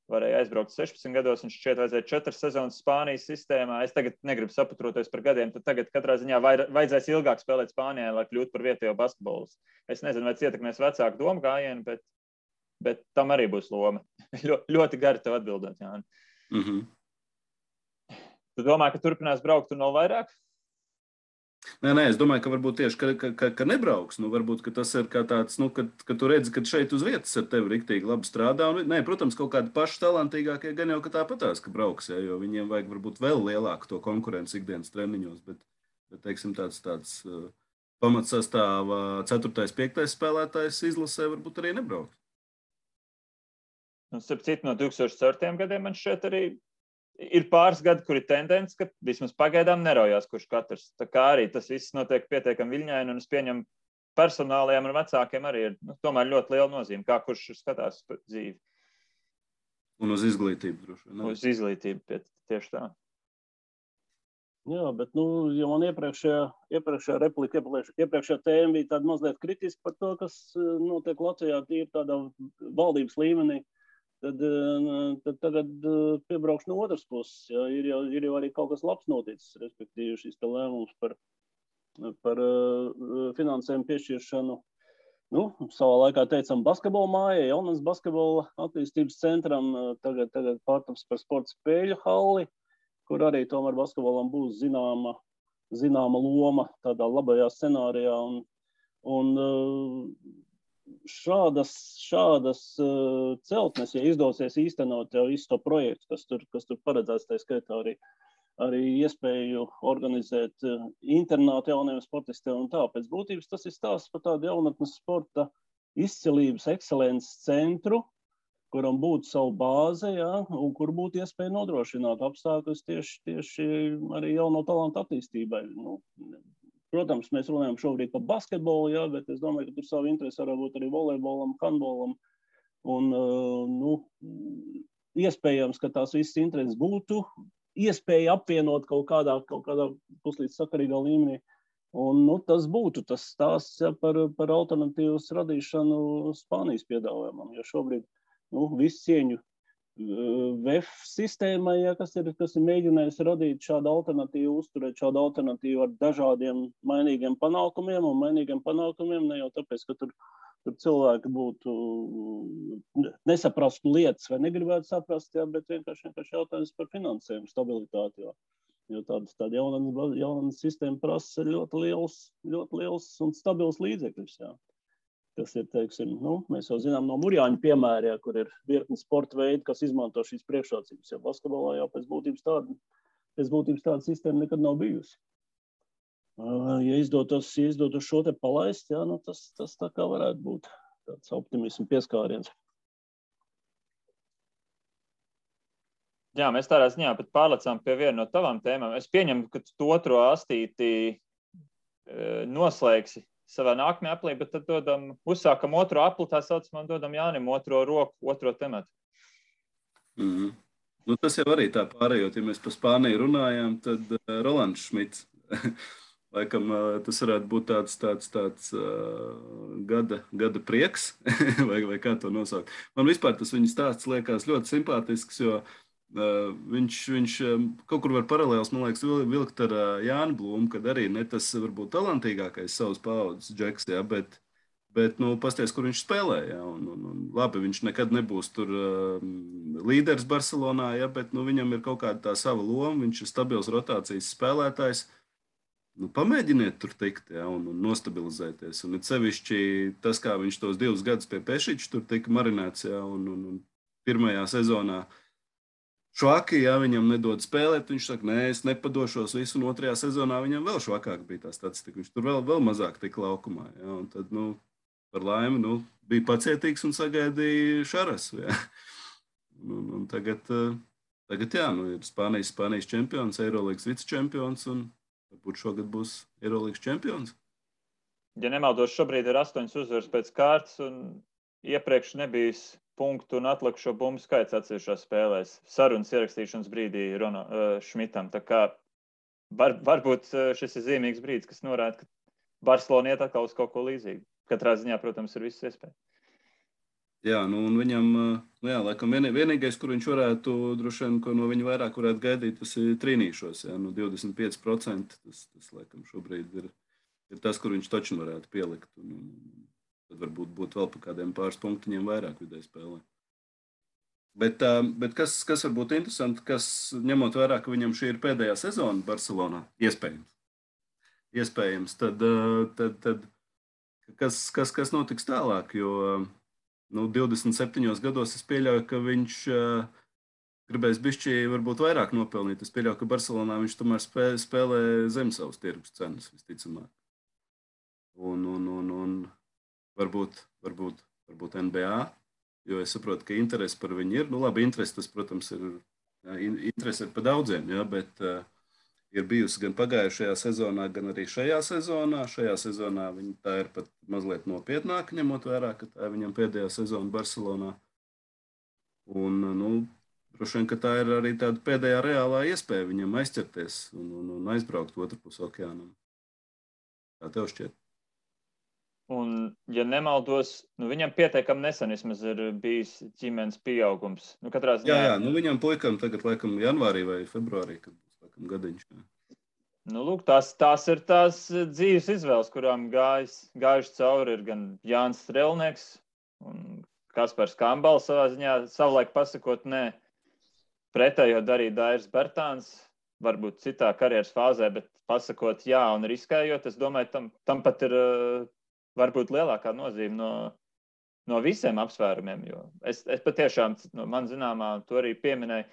varēja aizbraukt 16 gados, un šķiet vajadzēja 4 sezonas Spānijas sistēmā. Es tagad negribu saputroties par gadiem, tad tagad katrā ziņā vajadzēs ilgāk spēlēt Spānijā, lai kļūtu par vietējo basketbolu. Es nezinu, vai tas ietekmēs vecāku domu gājienu, bet tam arī būs loma. Ļoti gari tev atbildēt, Jāni. Tu domā, ka turpinās braukt un vēl vairāk? Nē, es domāju, ka varbūt tieši, ka nebrauks. Varbūt, ka tas ir kā tāds, ka tu redzi, ka šeit uz vietas ar tevi riktīgi labi strādā. Nē, protams, kaut kādi paši talantīgākie gan jau, ka tāpatās, ka brauks, jo viņiem vajag varbūt vēl lielāku to konkurenci ikdienas treniņos, bet teiksim, tāds pamatsastāvā 4., 5. spēlētājs izlasē varbūt arī nebraukt. Starp citu, no 2004. gadiem man šķiet arī ir pāris gadi, kur ir tendence, ka vismaz pagaidām neraujās, kurš katrs. Tā kā arī tas viss notiek pietiekami viļņaini, un es pieņemu personālajiem un vecākiem arī ir tomēr ļoti liela nozīme, kā kurš skatās dzīvi. Un uz izglītību droši vien. Uz izglītību, tieši tā. Jā, bet, ja man iepriekšējā replika, iepriekšējā tēma bija tāda mazliet kritiska par to, kas notiek Latvijā, tīri tādā valdības līmenī, tad tagad piebraukšu no otras puses. Jā, ir jau arī kaut kas labs noticis, respektīvi šis lēmums par finansējumu piešķiršanu. Savā laikā teicam basketbola mājai, jaunas basketbola attīstības centram, tagad pārtaps par sporta spēļu halli, kur arī tomēr basketbolam būs zināma loma tādā labajā scenārijā. Un šādas celtnes, ja izdosies īstenot jau visu to projektu, kas tur paredzēts, tā skaitā arī iespēju organizēt internātu jauniem sportistiem un tā. Pēc būtības tas ir stāsts par tādu jaunatnes sporta izcilības, ekscelences centru, kuram būtu savu bāzi, un kur būtu iespēja nodrošināt apstākļus tieši arī jauno talantu attīstībai. Nu, protams, mēs runājam šobrīd par basketbolu, bet es domāju, ka tur savu interesi var būt arī volejbolam, handbolam. Un, iespējams, ka tās visas intereses būtu iespēja apvienot kaut kādā puslīdz sakarīgā līmenī. Un, tas būtu tas stāsts par alternatīvas radīšanu Spānijas piedāvājumam, jo šobrīd visu cieņu VEF sistēmai, kas ir mēģinājis radīt šādu alternatīvu, uzturēt šādu alternatīvu ar dažādiem mainīgiem panākumiem, un mainīgiem panākumiem ne jau tāpēc, ka tur cilvēki būtu nesaprastu lietas vai negribētu saprast, bet vienkārši jautājums par finansējumu stabilitāti, jo tāda jauna sistēma prasa ļoti liels un stabils līdzekļus, kas ir, teiksim, mēs jau zinām no Murjāņu piemēra, kur ir virkni sporta veidi, kas izmanto šīs priekšrocības, jo basketbolā jau pēc būtības tāda sistēma nekad nav bijusi. Ja izdotos šo te palaist, tas tā kā varētu būt tāds optimismu pieskāriens. Jā, mēs tādā ziņā pat pārlecām pie viena no tavām tēmām. Es pieņemu, ka tu otro astīti noslēgsi savā nākamajā aplī, bet tad uzsākam otro apli, tā saucamā, dodam Jānim otro roku, otro tematu. Tas jau arī tā pārējot, ja mēs par Spāniju runājām, tad Rolands Šmits. Laikam tas varētu būt tāds gada prieks, vai kā to nosaukt. Man vispār tas viņa stāsts liekas ļoti simpātisks, jo viņš kaut kur var paralēls, man liekas, vilkt ar Jāni Blūmu, kad arī ne tas varbūt talantīgākais savas paaudzes džeks, bet pasties, kur viņš spēlē, un labi, viņš nekad nebūs tur līderis Barcelonā, bet viņam ir kaut kāda tā sava loma, viņš ir stabils rotācijas spēlētājs. Pamēģiniet tur tikt, un nostabilizēties. Un it sevišķi tas, kā viņš tos 2 gadus pie Pešiča tur tika marinēts, un pirmajā sezonā švaki, viņam nedod spēlēt, viņš saka, nē, es nepadošos visu, un otrajā sezonā viņam vēl švakāk bija tā statistika, viņš tur vēl mazāk tika laukumā, un tad, par laimi, bija pacietīgs un sagaidīja Šarasu, Un tagad ir Spānijas čempions, Eirolīgas vicečempions, un varbūt šogad būs Eirolīgas čempions. Ja nemaldos, šobrīd ir 8 uzvaras pēc kārtas, un iepriekš nebijis punktu un atlikušo bumbu skaits atsevišķās spēlēs. Sarunas ierakstīšanas brīdī Šmitam. Tā kā varbūt šis ir zīmīgs brīdis, kas norāda, ka Barcelona iet atkal uz kaut ko līdzīgu. Katrā ziņā, protams, ir viss iespēja. Jā, un viņam, laikam vienīgais, kur viņš varētu, droši vien, ko no viņa vairāk varētu gaidīt, tas ir trīnīšos, 25%, tas laikam šobrīd ir tas, kur viņš taču varētu pielikt, un tad varbūt būtu vēl pa kādiem pāris punktiņiem vairāk vidēji spēlē. Bet kas varbūt interesanti, kas ņemot vērā, ka viņam šī ir pēdējā sezona Barcelonā, iespējams, tad kas notiks tālāk, jo 27 gados es pieļauju, ka viņš gribēs bišķi varbūt vairāk nopelnīt. Es pieļauju, ka Barcelonā viņš tomēr spēlē zem savas tirgus cenas, visticamāk. Un varbūt NBA, jo es saprotu, ka interesi par viņu ir. Labi, interesi tas, protams, interesi ir par daudziem, bet ir bijusi gan pagājušajā sezonā, gan arī šajā sezonā. Šajā sezonā viņa tā ir pat mazliet nopietnāka, ņemot vērā, ka tā ir viņam pēdējā sezona Barcelonā. Un, droši vien, ka tā ir arī tāda pēdējā reālā iespēja viņam aizķerties un aizbraukt otrpus okeānam. Kā tev šķiet? Un, ja nemaldos, viņam pietiekami nesen vismaz ir bijis ģimenes pieaugums. Katrā ziņā... Jā, viņam puikam tagad, laikam, janvārī vai februārī, kad būs, laikam, gadiņš. Lūk, tās ir tās dzīves izvēles, kurām gājuši cauri ir gan Jānis Strelnieks un Kaspars Kambals savā ziņā, savulaik pasakot, nē, pretējo darīja Dairis Bertāns, varbūt citā karjeras fāzē, bet pasakot jā un riskējot, es domāju, tam pat ir varbūt lielākā nozīme no visiem apsvērumiem, jo es patiešām, man zināmā, to arī pieminēju,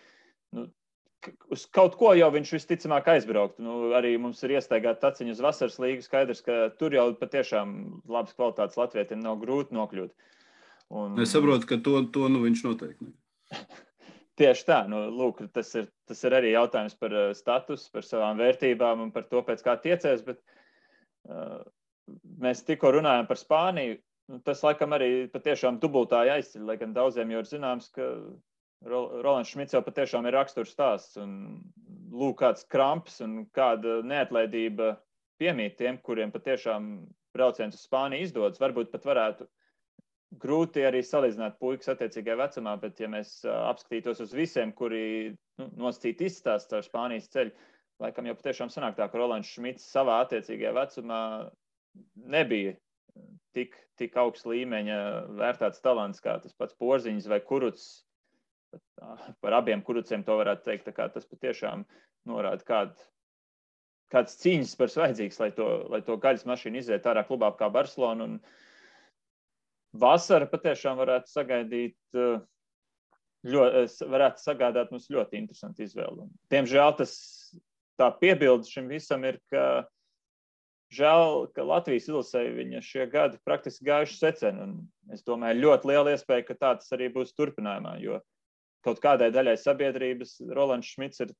uz kaut ko jau viņš visticamāk aizbrauktu. Arī mums ir iestaigāta taciņa uz vasaras līgu, skaidrs, ka tur jau patiešām labas kvalitātes latvietiem nav grūti nokļūt. Es saprotu, ka to viņš noteikti ne. Tieši tā. Lūk, tas ir arī jautājums par status, par savām vērtībām un par to, pēc kā tiecies, bet mēs tikko runājam par Spāniju. Tas, laikam, arī patiešām dubultāji aizceļ, lai gan daudziem jau ir zināms, ka Rolands Šmits jau patiešām ir raksturs stāsts un lūk, kāds kramps un kāda neatlaidība piemīt tiem, kuriem patiešām brauciens uz Spāniju izdodas. Varbūt pat varētu grūti arī salīdzināt puikas attiecīgajā vecumā, bet ja mēs apskatītos uz visiem, kuri nosacīti izstāst ar Spānijas ceļu, laikam jau patiešām sanāk tā, ka Rolands Šmits savā attiecīgajā vecumā nebija tik augsts līmeņa vērtāts talants, kā tas pats Porziņš vai Kurucs. Par abiem Kuruciem to varētu teikt, tā kā tas patiešām norāda, kāds cīņas spars vajadzīgs, lai to gaļas mašīnu iziet ārā klubā kā Barcelona. Un vasara patiešām varētu sagādāt mums ļoti interesantu izvēli. Diemžēl tā piebilde šim visam ir, ka žēl, ka Latvijas izlasēji viņa šie gadi praktiski gājuši seceni. Un es domāju, ļoti liela iespēja, ka tā tas arī būs turpinājumā, jo kaut kādai daļai sabiedrības Rolands Šmits ir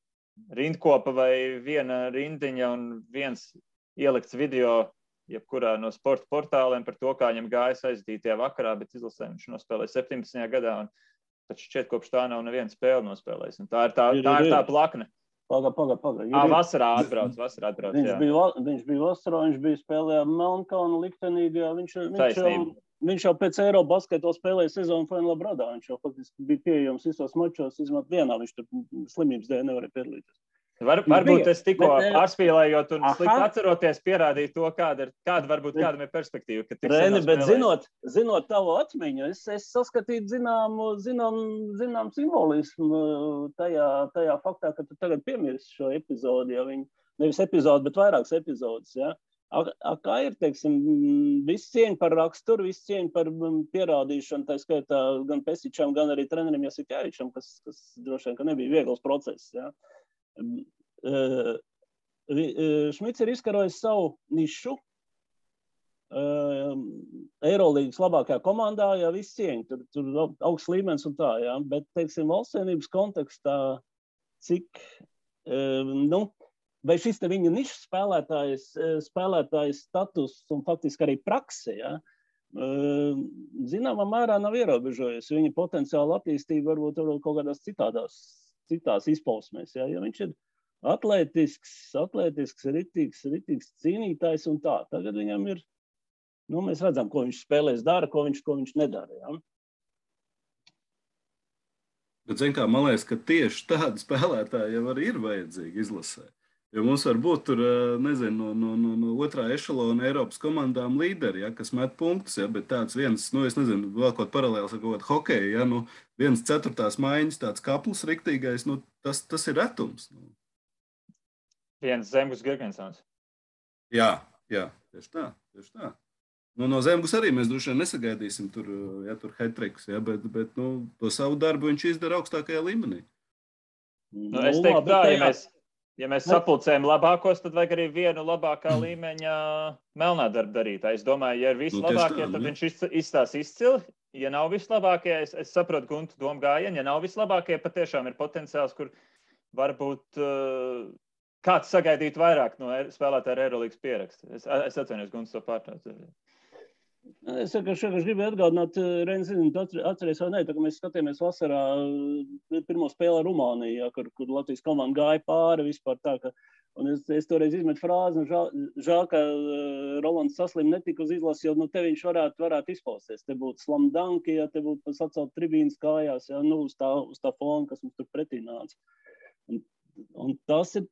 rindkopa vai viena rindiņa un viens ielikts video jebkurā no sporta portāliem par to, kā viņam gājas aizdītajā vakarā, bet izlasē viņš nospēlēja 17. gadā un taču šķiet kopš tā nav neviena spēle nospēlējis. Un tā ir tā plakne. Paga. Vasarā atbrauc, viņš bija vasarā, viņš bija spēlējā Melnkalna liktenīgā, viņš jau pēc Eirobasketā spēlēja sezonu Fenla Bradā, viņš jau faktiski bija pieejams visos mačos, izmēt vienā, viņš tur slimības dēļ nevarēja piedalīties. Varbūt es tikko pārspīlējot un slikti atceroties pierādīju to, kādam ir perspektīva. Reni, bet zinot tavu atmiņu, es saskatīju zinām simbolismu tajā faktā, ka tu tagad piemirsti šo epizodi, ja nevis epizodi, bet vairākas epizodes, ja. Kā ir, teiksim, viss cieņa par raksturu, viss cieņa par pierādīšanu, tā skaitā gan Pesičam, gan arī trenerim Jasikēvičam, kas droši vien, ka nebija viegls process, ja. Šmits ir izkarojis savu nišu Eirolīgas labākajā komandā, ja viss cieņa, tur augsts līmenis un tā, ja, bet, teiksim, valstsienības kontekstā, cik, vai šis te viņa nišas spēlētājs status un faktiski arī prakse, ja, zināmā mērā nav ierobežojies, viņa potenciāla attīstība varbūt kaut kādās citās izpausmēs, ja viņš ir atletisks, ritīgs cīnītājs un tā. Tagad viņam ir, mēs redzam, ko viņš spēlēs dara, ko viņš nedara, ja. Bet, kā, man liekas, ka tieši tādi spēlētāji jau arī ir vajadzīgi izlasē. Jo mums var būt tur, nezinu, no otrā ešalona Eiropas komandām līderi, ja, kas met punktus, ja, bet tāds viens, es nezinu, vēl kaut paralēls ar kaut kādu hokeju, ja, 1/4 maiņas, tāds kaplis riktīgais, tas ir retums. Viens Zemgus Girgensons. Jā, tieši tā. No Zemgus arī mēs droši vien nesagaidīsim tur hat-trikus, ja, bet to savu darbu viņš izdara augstākajā līmenī. Es teiktu tā, ja mēs sapulcējam labākos, tad vajag arī vienu labākā līmeņa melnā darba darītāju. Es domāju, ja ir vislabākie, tad viņš izstās izcili. Ja nav vislabākie, es saprotu Guntu domu gājienu, ja nav vislabākie, patiešām ir potenciāls, kur varbūt kāds sagaidīt vairāk no spēlētāja ar Eirolīgas pierakstu. Es atvainojos Guntu to pārtrauc. Es gribēju atgādināt, Reini, atceries vai ne, tā, ka mēs skatījāmies vasarā pirmo spēli ar Rumāniju, kur Latvijas komanda gāja pāri vispār tā, ka, un es toreiz izmetu frāzi, un žēl, ka Rolands saslim netika uz izlasi, jo te viņš varētu izpausties. Te būtu slam danki, ja te būtu sacelt tribīnas kājās, ja, uz tā fona, kas mums tur pretī nāca. Un tas ir,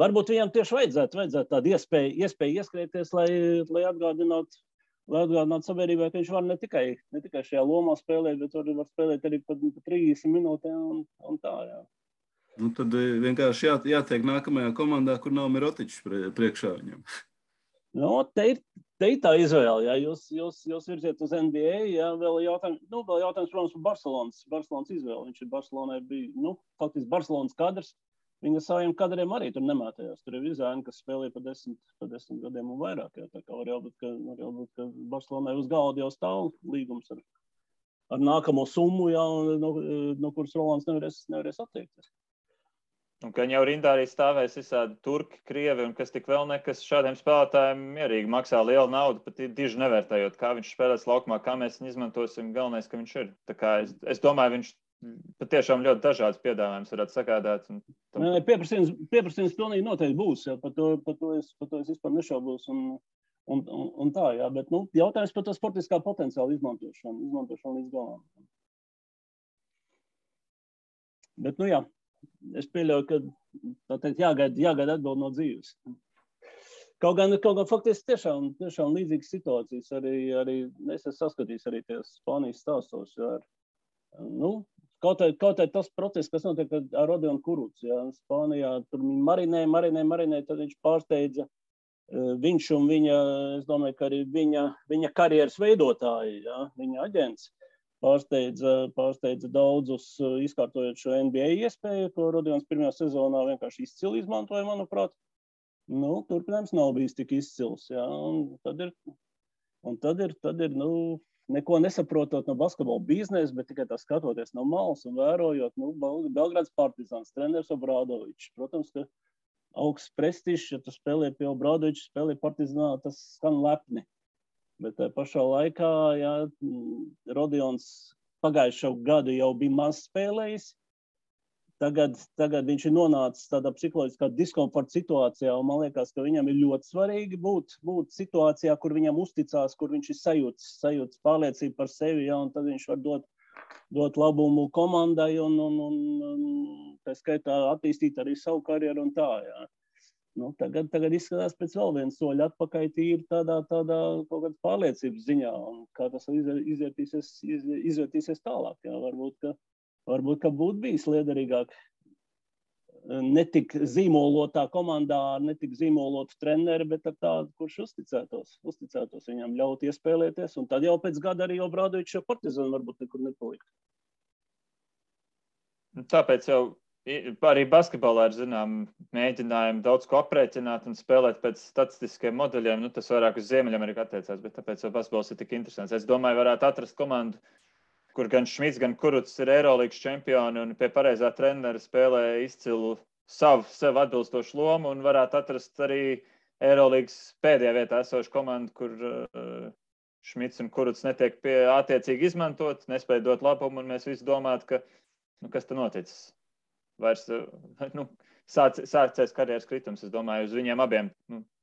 varbūt viņam tieši vajadzētu tādu iespēju ieskrieties, lai atgādinātu sabiedrībai, ka viņš var ne tikai šajā lomā spēlēt, bet var spēlēt arī pat 30 minūtēm un tā, jā. Tad vienkārši jātiek nākamajā komandā, kur nav Mirotičs priekšā viņam. Te ir tā izvēle, jā. Jūs virziet uz NBA, jā, vēl jautājums, protams, par Barcelonas izvēli. Viņš ir Barcelonai bija, faktiski Barcelonas kadrs. Viņa saviem kadriem arī tur nemētējās. Tur ir vizāni, kas spēlēja pa 10 gadiem un vairāk. Jā. Tā kā var jau būt, ka Barcelonai uz galda jau stāv līgums ar ar nākamo summu, jā, no kuras Rolands nevarēs attiekties. Un ka viņi jau rindā arī stāvēs visādi turki, krievi un kas tik vēl nekas šādiem spēlētājiem mierīgi maksā lielu naudu, pat diži nevērtējot, kā viņš spēlēs laukumā, kā mēs viņu izmantosim, galvenais, ka viņš ir. Tā kā es domāju, viņš patiešām ļoti dažādas piedāvājumus varētu sagādāt. Pieprasījums pilnīgi noteikti būs, jā, par to es vispār nešaubos un tā, jā, bet, jautājums par to sportiskā potenciāla izmantošanu līdz galam. Bet, jā, es pieļauju, ka tā teikt, jāgaida atbild no dzīves. Kaut gan faktiski tiešām līdzīgas situācijas arī es esmu saskatījis arī ties Spānijas stāstos. Jā, kaut arī tas process, kas notiek ar Rodionu Kurucu, jā, Spānijā, tur marinē, tad viņš pārsteidza viņš un viņa, es domāju, ka arī viņa karjeras veidotāji, jā, viņa aģents, pārsteidza daudzus, izkārtojot šo NBA iespēju, ko Rodions pirmajā sezonā vienkārši izcili izmantoja, manuprāt. Turpinājums nav bijis tik izcils, jā, un tad ir, neko nesaprotot no basketbola biznesa, bet tikai tā skatoties no malas un vērojot, Belgrāds Partizāns, treneris Obradovičs, protams, ka augsts prestižs, ja tu spēlē pie Obradoviča, spēlē Partizānā, tas skan lepni. Bet pašā laikā, jā, Rodions pagājušo gadu jau bija maz spēlējis. Tagad viņš ir nonācis tādā psiholoģiskā diskomforta situācijā, un man liekas, ka viņam ir ļoti svarīgi būt situācijā, kur viņam uzticās, kur viņš ir sajūts pārliecību par sevi, jā, un tad viņš var dot labumu komandai un tā skaitā attīstīt arī savu karjeru un tā, jā. Tagad izskatās pēc vēl viens soļa atpakaļ tīri tādā kaut kādas pārliecības ziņā, un kā tas izvērtīsies tālāk, jā, varbūt, ka būtu bijis liederīgāk netik zīmolotā komandā ar netik zīmolotu treneri, bet ar tādu, kurš uzticētos viņam ļaut iespēlēties, un tad jau pēc gada arī Obradovičs jau Partizānu varbūt nekur nepalikt. Tāpēc jau arī basketbolā ir, mēģinājumi daudz ko aprēķināt un spēlēt pēc statistiskiem modeļiem. Tas vairāk uz Ziemeļameriku attiecās, bet tāpēc jau basketbols ir tik interesants. Es domāju, varētu atrast komandu, kur gan Šmits, gan Kurucs ir Eirolīgas čempioni un pie pareizā trenera spēlē izcilu sev atbilstošu lomu un varētu atrast arī Eirolīgas pēdējā vietā esošu komandu, kur Šmits un Kurucs netiek attiecīgi izmantot, nespēja dot labumu un mēs visi domātu, ka kas te noticis? Vairs sācies karjeras kritums. Es domāju, uz viņiem abiem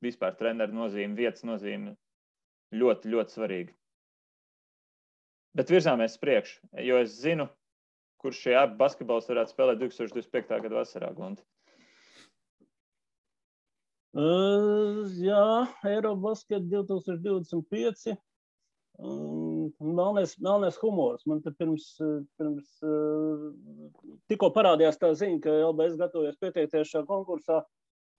vispār treneru nozīme, vietas nozīme ļoti, ļoti svarīga. Bet virzāmies priekšu, jo es zinu, kurš šie abi basketbols varētu spēlēt 2025. gada vasarā, Gunti. Jā, Eirobasket 2025. Melnais humors. Man te pirms tikko parādījās tā ziņa, ka LBS gatavojas pieteikties šajā konkursā.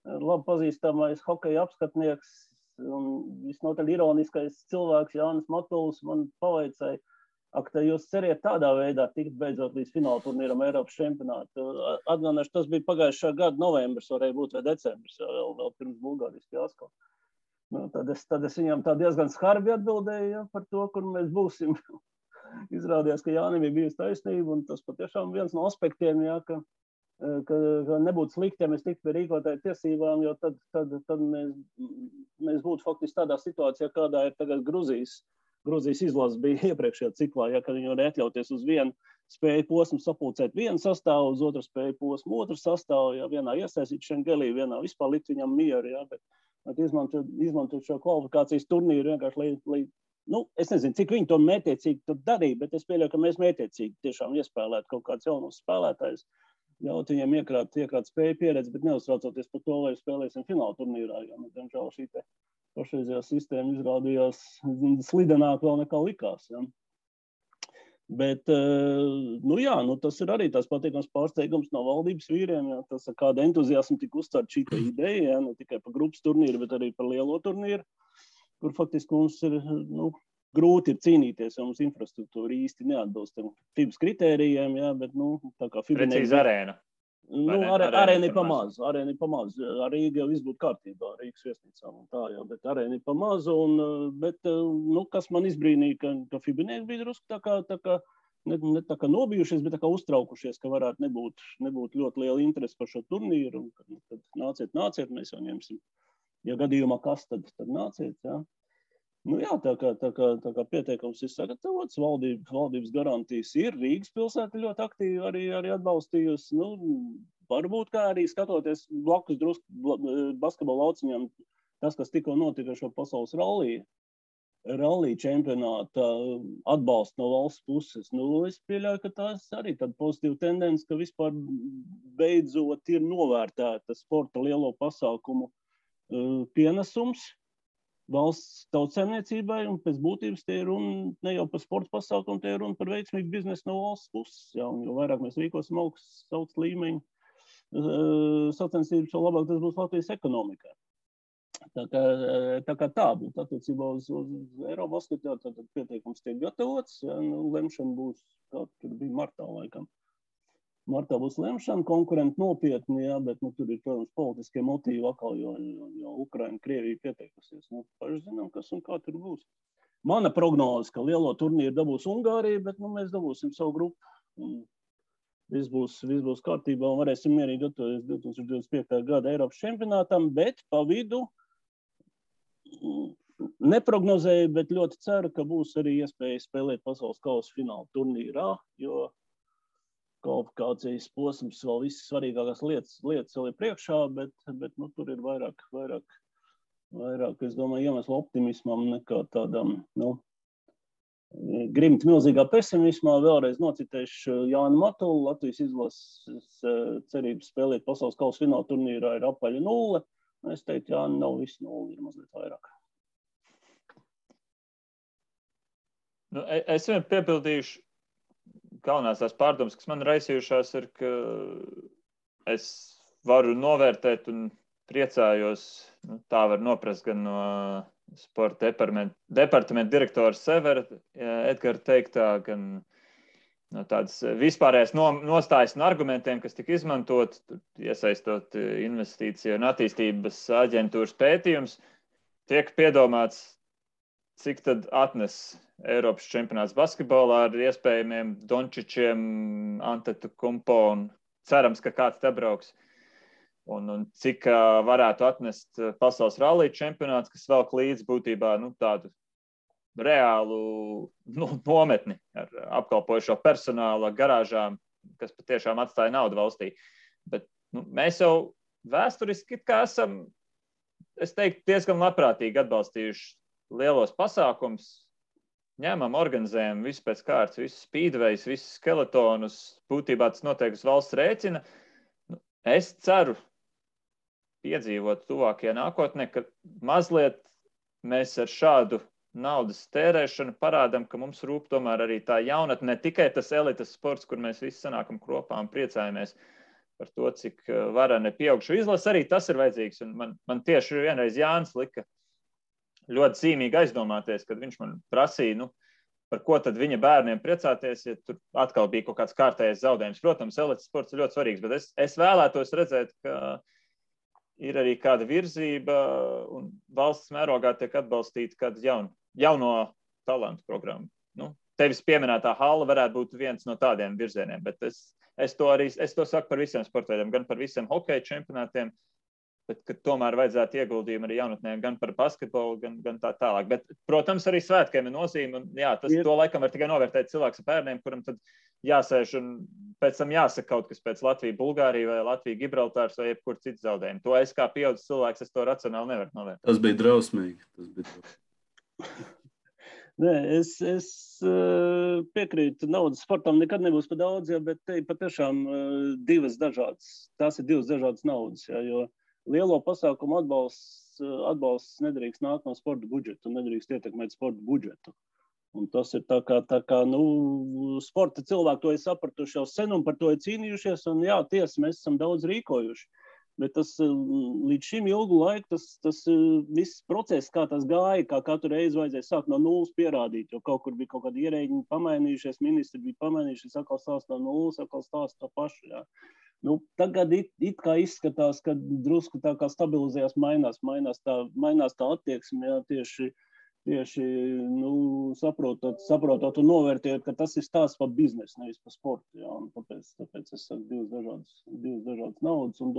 Labi pazīstamais hokeja apskatnieks un visnotaļ ironiskais cilvēks Jānis Matuls man pavaicāja, ka jūs ceriet tādā veidā tikt beidzot līdz fināla turnīram Eiropas čempionātu. Atgādināšu, tas bija pagājušā gada novembris, varēja būt vai decembris, vēl pirms Bulgārijas fiasko. Tad es viņam tā diezgan skarbi atbildēju, ja, par to, kur mēs būsim. Izrādījās, ka Jānim ir bijusi taisnība, un tas patiešām viens no aspektiem, ja, ka nebūtu slikti, ja mēs tiktu pie rīkotāju tiesībām, jo tad mēs būtu faktiski tādā situācijā, kādā ir tagad Gruzijas izlases bija iepriekšējā ciklā, ja, kad viņi var atļauties uz vienu spēju posmu sapulcēt vienu sastāvu, uz otru spēju posmu otru sastāvu, ja, vienā iesaistīt Šengelī, vienā vispār likt viņam mieru, ja, bet izmantot šo kvalifikācijas turnīru vienkārši, lai es nezinu, cik viņi to mētiecīgi tur darīja, bet es pieļauju, ka mēs mētiecīgi tiešām iespēlētu kaut kādus jaunus spēlētājus, ļaut viņiem iekrāt spēju pieredzi, bet neuztraucoties par to, vai spēlēsim fināla turnīrā, jo, diemžēl šī te pašreizējā sistēma izrādījās slidenāk vēl nekā likās. Ja. Bet, tas ir arī tās patīkams pārsteigums no valdības vīriem, ja, tas ar kādu entuziasmu tika uzstāt šī ideja, ja, ne tikai par grupas turnīru, bet arī par lielo turnīru, kur faktiski mums ir, grūti ir cīnīties, jo mums infrastruktūra īsti neatbilst FIBAS kritērijiem, ja, bet, tā kā FIBA precīzi arēna. Arēna ir pamaz. Ar Rīgu jau viss būtu kārtībā, Rīgas viesnīcām un tā jau, bet arēna ir pamaz. Bet, kas man izbrīnīja, ka Fibinieki bija drusku tā kā ne tā kā nobijušies, bet tā kā uztraukušies, ka varētu nebūt ļoti liela interese par šo turnīru. Un tad nāciet, mēs jau ņemsim. Ja gadījumā kas, tad nāciet, jā. Tā kā pieteikums ir sagatavots, valdības garantijas ir, Rīgas pilsēta ļoti aktīvi arī atbalstījusi. Varbūt kā arī skatoties blakus drusku basketbola lauciņām, tas, kas tikko notika šo pasaules rallija čempionāta atbalstu no valsts puses. Es pieļauju, ka tās arī tāda pozitīva tendence, ka vispār beidzot ir novērtēta sporta lielo pasākumu pienesums valsts tautsaimniecībai, un pēc būtības tie ir runa ne jau par sporta pasākumu, tie ir runa par veiksmīgu biznesu no valsts puses. Jā, un jo vairāk mēs rīkosim augsts līmeņu sacensības, jo labāk tas būs Latvijas ekonomikai. Tā kā tā būtu attiecībā uz Eirobasketu, tad pieteikums tiek gatavots, ja, lemšana būs, kā tur bija martā laikam. Martā būs lemšana, konkurenti nopietni, ja, bet tur ir, protams, politiskie motīvi atkal, jo Ukraina, Krievija pieteikusies. Paši zinām, kas un kā tur būs. Mana prognoze, ka lielo turnīru dabūs Ungārija, bet mēs dabūsim savu grupu. Viss būs kārtībā un varēsim mierīgi gatavoties 2025. gada Eiropas čempionātam, bet pa vidu neprognozēju, bet ļoti ceru, ka būs arī iespēja spēlēt pasaules kausa fināla turnīrā, jo kvalifikācijas posms vēl visas svarīgākās lietas vēl ir priekšā, bet tur ir vairāk, es domāju, iemeslu optimismam nekā tādam, grimt milzīgā pesimismā. Vēlreiz nocitēšu Jānu Matulu, Latvijas izlases cerības spēlēt pasaules kausa fināla turnīrā ir apaļa 0. Es teiktu, Jāni, nav viss 0, ir mazliet vairāk. Es vien piepildīšu galvenās tās pārdomas, kas man raisījušās, ir, ka es varu novērtēt un priecājos, tā var noprast gan no sporta departamenta direktora Severa Edgara teiktā, gan no tādas vispārējās nostājas un argumentiem, kas tika izmantot, iesaistot investīciju un attīstības aģentūras pētījums, tiek piedomāts, cik tad atnes Eiropas čempionāts basketbolā ar iespējamiem Dončičiem, Antetokumpo un cerams, ka kāds te brauks. Un cik varētu atnest pasaules rallija čempionāts, kas velk līdz būtībā tādu reālu nometni ar apkalpojušo personālu, garāžām, kas patiešām atstāja naudu valstī. Bet mēs jau vēsturiski kā esam, es teiktu, diezgan labprātīgi atbalstījuši lielos pasākums, ņemam, organizējam visu pēc kārtas, visus speedways, visus skeletonus, būtībā tas notiek uz valsts rēķina. Es ceru piedzīvot tuvākajā nākotnē, ka mazliet mēs ar šādu naudas tērēšanu parādām, ka mums rūp tomēr arī tā jaunatne, ne tikai tas elites sports, kur mēs visi sanākam kopā un priecājamies par to, cik vareni pieaugšu izlase, arī tas ir vajadzīgs. Un man tieši vienreiz Jānis lika ļoti zīmīgi aizdomāties, kad viņš man prasīja, par ko tad viņa bērniem priecāties, ja tur atkal bija kaut kāds kārtējais zaudējums. Protams, elites sports ir ļoti svarīgs, bet es vēlētos redzēt, ka ir arī kāda virzība un valsts mērogā tiek atbalstīta kāda jauno talantu programma. Tevis pieminētā hala varētu būt viens no tādiem virzieniem, bet es to saku par visiem sportveidiem, gan par visiem hokeja čempionātiem, bet ka tomēr vajadzētu ieguldījumu arī jaunatnēm, gan par basketbolu, gan tā tālāk. Bet, protams, arī svētkiem ir nozīme, un jā, to laikam var tikai novērtēt cilvēks ar bērniem, kuram tad jāsēž un pēc tam jāsaka kaut kas pēc Latvija, Bulgārija vai Latvija, Gibraltārs vai jebkur cits zaudējumi. To es kā pieaudzis cilvēks, es to racionāli nevaru novērtēt. Tas bija drausmīgi. Nē, es piekrītu, naudas sportam nekad nebūs par daudz, bet te ir patiešām tās ir divas dažādas naudas, jo lielo pasākumu atbalsts nedrīkst nākt no sporta budžeta un nedrīkst ietekmēt sporta budžetu. Un tas ir tā kā sporta cilvēki to ir sapratuši jau sen un par to ir cīnījušies, un jā, tiesa, mēs esam daudz rīkojuši. Bet tas līdz šim ilgu laiku, tas viss process, kā tas gāja, kā katru reizi vajadzēja sākt no nulles pierādīt, jo kaut kur bija kaut kādi ierēģi pamainījušies, ministri bija pamainījušies, atkal stāst no nulles, atkal stāst to pašu, jā. Nu, tagad it kā izskatās, ka drusku tā kā stabilizējās, mainās tā attieksme, jā, tieši saprotot un novērtējot, ka tas ir stāsts par biznesu, nevis par sportu. Jā, un tāpēc es saku divas dažādas naudas un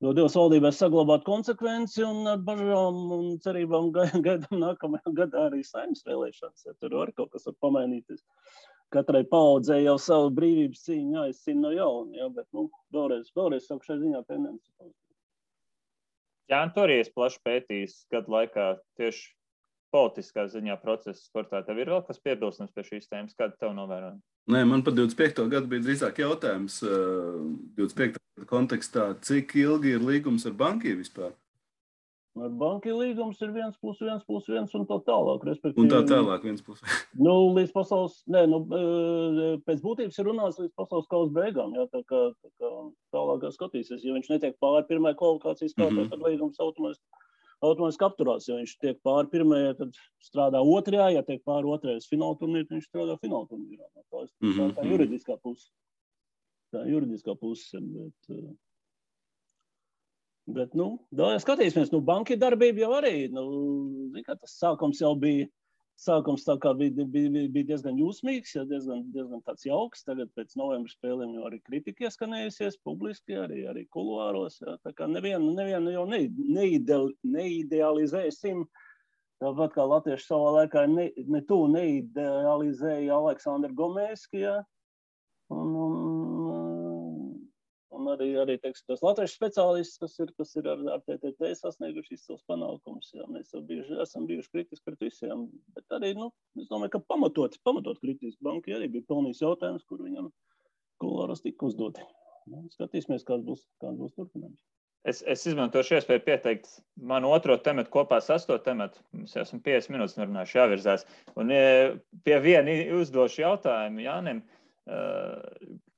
Dievs valdībai saglabāt konsekvenci un ar bažām un cerībām gaidām nākamajā gadā arī Saeimas vēlēšanas. Ja tur var kaut kas var pamainīties. Katrai paaudzē jau savu brīvības cīņu jāizcīna no jauna, ja, bet vēlreiz saku šai ziņā tendenci. Jā, un tur arī es plaši pētījis gadu laikā tieši politiskā ziņā procesa sportā. Tev ir vēl kas piebilstams pie šīs tēmas? Kāda tev novērojama? Nē, man par 25. gadu bija drīzāk jautājums 25. kontekstā, cik ilgi ir līgums ar Bankiju vispār? Ar Bankiju līgums ir 1+1+1 un tā tālāk. Un tā tālāk 1+1. Līdz pasaules, pēc būtības ir runāts līdz pasaules kausa beigām, jā, tā kā tālāk skatīsies. Ja viņš netiek pāri pirmajai kvalifikācijas kārtai, tad līgums automātiski apturās. Ja viņš tiek pāri pirmajai, tad strādā otrajā, ja tiek pāri otrajai fināla turnīrā, tad viņš strādā fināla turnīrā. Tā juridiskā puse. Bet skatīsimies, Banki darbība jau arī, tas sākums jau bija tā kā bija diezgan jūsmīgs, ja, diezgan tāds jauks. Tagad pēc novembra spēlēm jau arī kritika ieskanējusies publiski, arī kuluāros. Ja, tā kā nevienu jau neidealizēsim. Tāpat kā latvieši savā laikā neidealizēja Aleksandru Gomēski, ja. Un arī teiksim, tos latviešu speciālistus, kas ir ar TTT sasnieguši izcils panākumus. Jā, mēs esam bijuši kritiski pret visiem, bet arī, es domāju, ka pamatot kritiski. Banki arī bija pelnījis jautājums, kur viņam kuluāros tika uzdoti. Skatīsimies, kāds būs turpinājums. Es izmantošu iespēju pieteikt manu otro tematu kopā ar 8. tematu. Mums jau esam 50 minūtes nerunājuši jāvirzās. Un pie viena uzdošu jautājumu Jānim.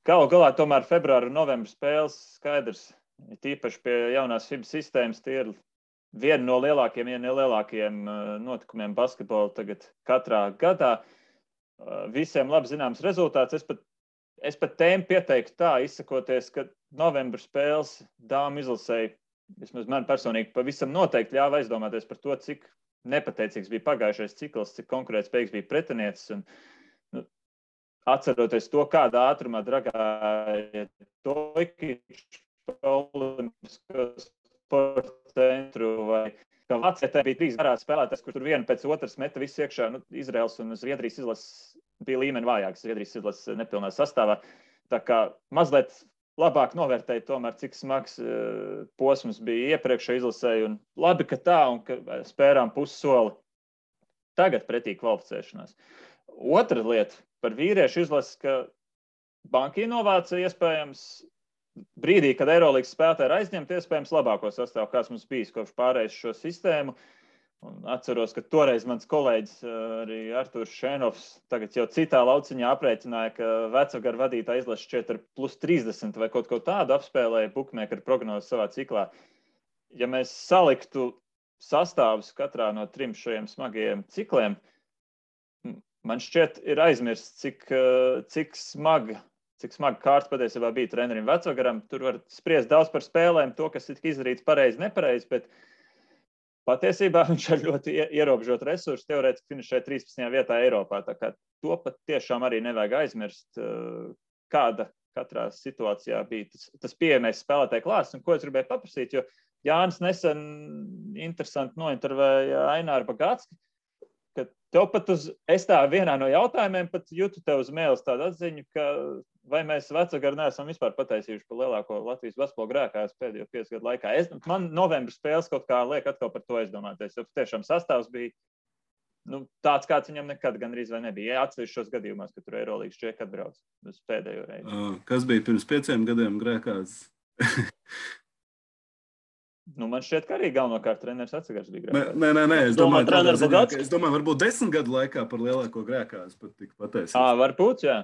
Galu galā tomēr februāra un novembra spēles skaidrs, tīpaši pie jaunās FIBA sistēmas, tie ir viena no lielākajiem notikumiem basketbola tagad katrā gadā. Visiem labi zināms rezultāts. Es pat tēmu pieteiktu tā, izsakoties, ka novembra spēles dāmu izlasēja, vismaz man personīgi, pavisam noteikti ļāva aizdomāties par to, cik nepateicīgs bija pagājušais cikls, cik konkurētspējīgs bija pretiniecis. Un, atceroties to, kādā ātrumā dragāja Toikičs Olimpisko sporta centru, vai ka Vācijā bija 3 garās spēlētājs, kur tur viena pēc otras meta visu iekšā. Izraels un Zviedrijas izlases bija līmeni vājāks, Zviedrijas izlases nepilnā sastāvā. Tā kā mazliet labāk novērtēja tomēr, cik smags posms bija iepriekšējā izlasē. Un labi, ka tā un ka spērām pussoli tagad pretī kvalificēšanās. Otra lieta par vīriešu izlases, ka Banki novāca iespējams brīdī, kad Eirolīgas spēlētāji ir aizņemti, iespējams labāko sastāvu, kāds mums bijis kopš pārējais šo sistēmu. Un atceros, ka toreiz mans kolēģis arī Artūrs Šēnovs tagad jau citā lauciņā aprēķināja, ka Vecagara vadītā izlases šķiet ar +30 vai kaut ko tādu apspēlēja bukmēkara prognozes savā ciklā. Ja mēs saliktu sastāvus katrā no 3 šajiem smagajiem cikliem, man šķiet ir aizmirsts, cik smaga kārta patiesībā bija trenerim Vecagaram. Tur var spriest daudz par spēlēm, to, kas tika izdarīts pareizi, nepareizi, bet patiesībā viņš ar ļoti ierobežotu resursu teorētiski finišēja 13. vietā Eiropā. Tā kā to pat tiešām arī nevajag aizmirst, kāda katrā situācijā bija tas pieejamais spēlētāju klāsts. Un ko es gribēju paprasīt, jo Jānis nesen interesanti nointervēja Aināru Bagātski, ka tev pat es tā vienā no jautājumiem pat jūtu tev uz mēles tādu atziņu, ka vai mēs Vecagaru neesam vispār pataisījuši par lielāko Latvijas basketbola grēkājus pēdējo 5 gadu laikā. Man novembra spēles kaut kā liek atkal par to aizdomāties, jo tiešām sastāvs bija tāds, kāds viņam nekad gandrīz vai nebija. Atsevišķos gadījumos, ka tur Eirolīgas čeki atbrauc uz pēdējo reizi. Kas bija pirms 5 gadiem grēkājs? Man šķiet, ka arī galvenokārt treneris Vecagars bija grēkājs. Nē. Es domāju, varbūt 10 gadu laikā par lielāko grēkājs pat tika pateicis. Varbūt, jā.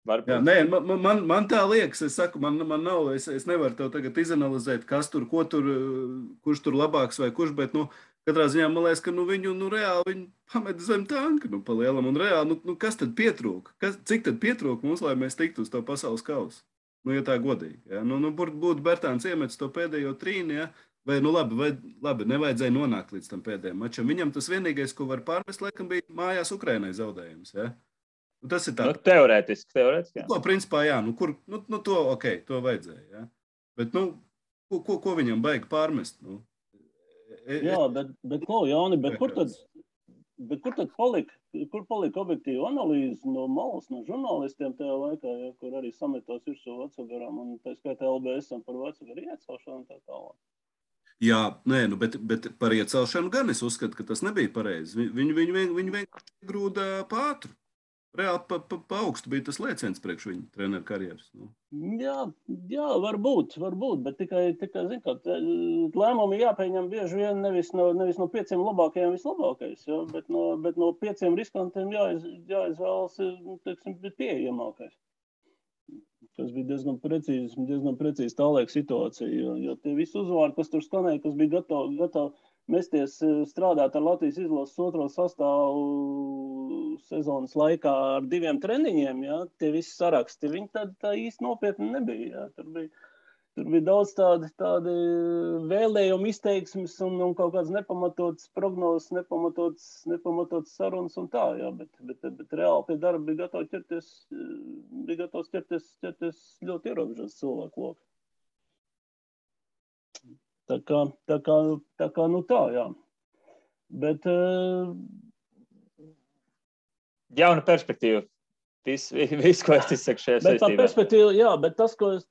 Jā, nē, man tā liekas, es saku, man nav, es nevaru tev tagad izanalizēt, kas tur, ko tur, kurš tur labāks vai kurš, bet, katrā ziņā man liekas, ka viņu, reāli viņi pamet zem tanka, pa lielam un reāli, kas tad pietrūka? Cik tad pietrūka mums, lai mēs tiktu uz to pasaules kausu? ja tā godīgi. Ja? Būtu Bertāns iemetis to pēdējo trīni, ja? Vai labi, nevajadzēja nonākt līdz tam pēdējiem mačam. Viņam tas vienīgais, ko var pārmest, laikam bija mājās Ukrainai zaudējums. Ja? Tas ir tā. Teorētiski, jā. To principā, jā, to vajadzēja. Ja? Bet, ko viņam baigi pārmest? Jā, bet Jāni, kur tad palika objektīva analīze no malas, no žurnālistiem tajā laikā, ja, kur arī sametos virsū Vecagaram un tā skaitā LBS-am par Vecagaru iecelšanu un tā tālāk? Jā, bet par iecelšanu gan es uzskatu, ka tas nebija pareizi. Viņi vienkārši grūda pātru. Reāli pa augstu bija tas lēciens priekš viņa treneru karjeras. Jā, varbūt, bet tikai zin, kā, lēmumi jāpieņem bieži vien nevis no 5 labākajiem vislabākais, ja, bet no 5 riskantiem jāizvēlas, teiksim, pieejamākais. Tas bija diezgan precīzi tālaika situācija, jo tie visi uzvārdi, kas tur skanēja, kas bija gatavi mesties strādāt ar Latvijas izlases otro sastāvu sezonas laikā ar 2 treniņiem, ja, tie visi saraksti, viņi tā īsti nopietni nebija. Ja. Tur bija daudz tādi vēlējumi izteiksmes un kaut kāds nepamatots prognozes, nepamatots sarunas un tā, ja, bet reāli pie darba bija gatavs ķerties ļoti ierobežots cilvēku loku. Tā kā, jā. Bet... Jauna perspektīva. Viss, ko es izsaku šajā saistībā. Bet tā perspektīva, jā, bet tas, ko es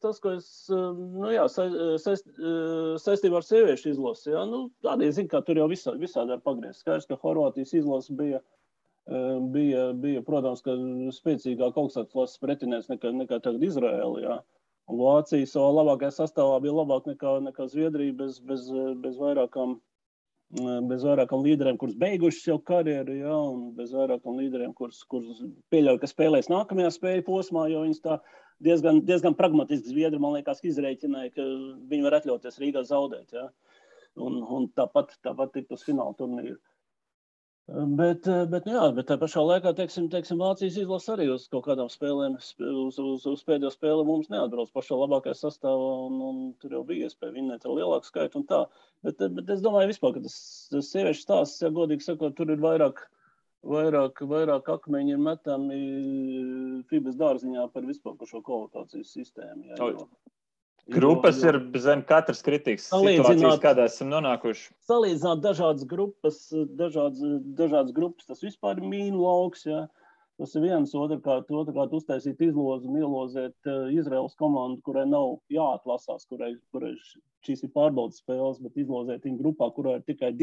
saistībā ar sieviešu izlasi, jā, arī zinu, kā tur jau visādi var pagriezt. Skaidrs, ka Horvātijas izlasi bija, protams, ka spēcīgāk augstākas klases pretinieks nekā tagad Izraēla, jā. Un Vācija savā labākajā sastāvā bija labāk nekā Zviedrija bez vairākam līderiem, kurus beigušas jau karjeru, ja, un bez vairākam līderiem, kurus pieļauj, ka spēlēs nākamajā spēļu posmā, jo viņas tā diezgan pragmatiski Zviedri, man liekas, izrēķināja, ka viņi var atļauties Rīgā zaudēt, ja, un tāpat tikt uz fināla turnīru. Bet tā pašā laikā, teiksim, Vācijas izlase arī uz kaut kādām spēlēm, uz pēdējo spēli mums neatbrauc pašā labākajā sastāvā, un tur jau bija iespēja vinnēt ar lielāku skaitu un tā. Bet es domāju vispār, ka tas sieviešu stāsts, ja godīgi sakot, tur ir vairāk akmeņi ir metami FIBAs dārziņā par vispār par šo kvalifikācijas sistēmu. Ja, Grupas ir zem katras kritikas situācijas, kādā esam nonākuši. Salīdzināt dažādas grupas, tas vispār ir mīnu lauks, ja. Tas ir viens, otrkārt uztaisīt izlozi un ielozēt Izraels komandu, kurai nav jāatlasās, kurai šīs ir pārbaudas spēles, bet izlozēt viņu grupā, kurai tikai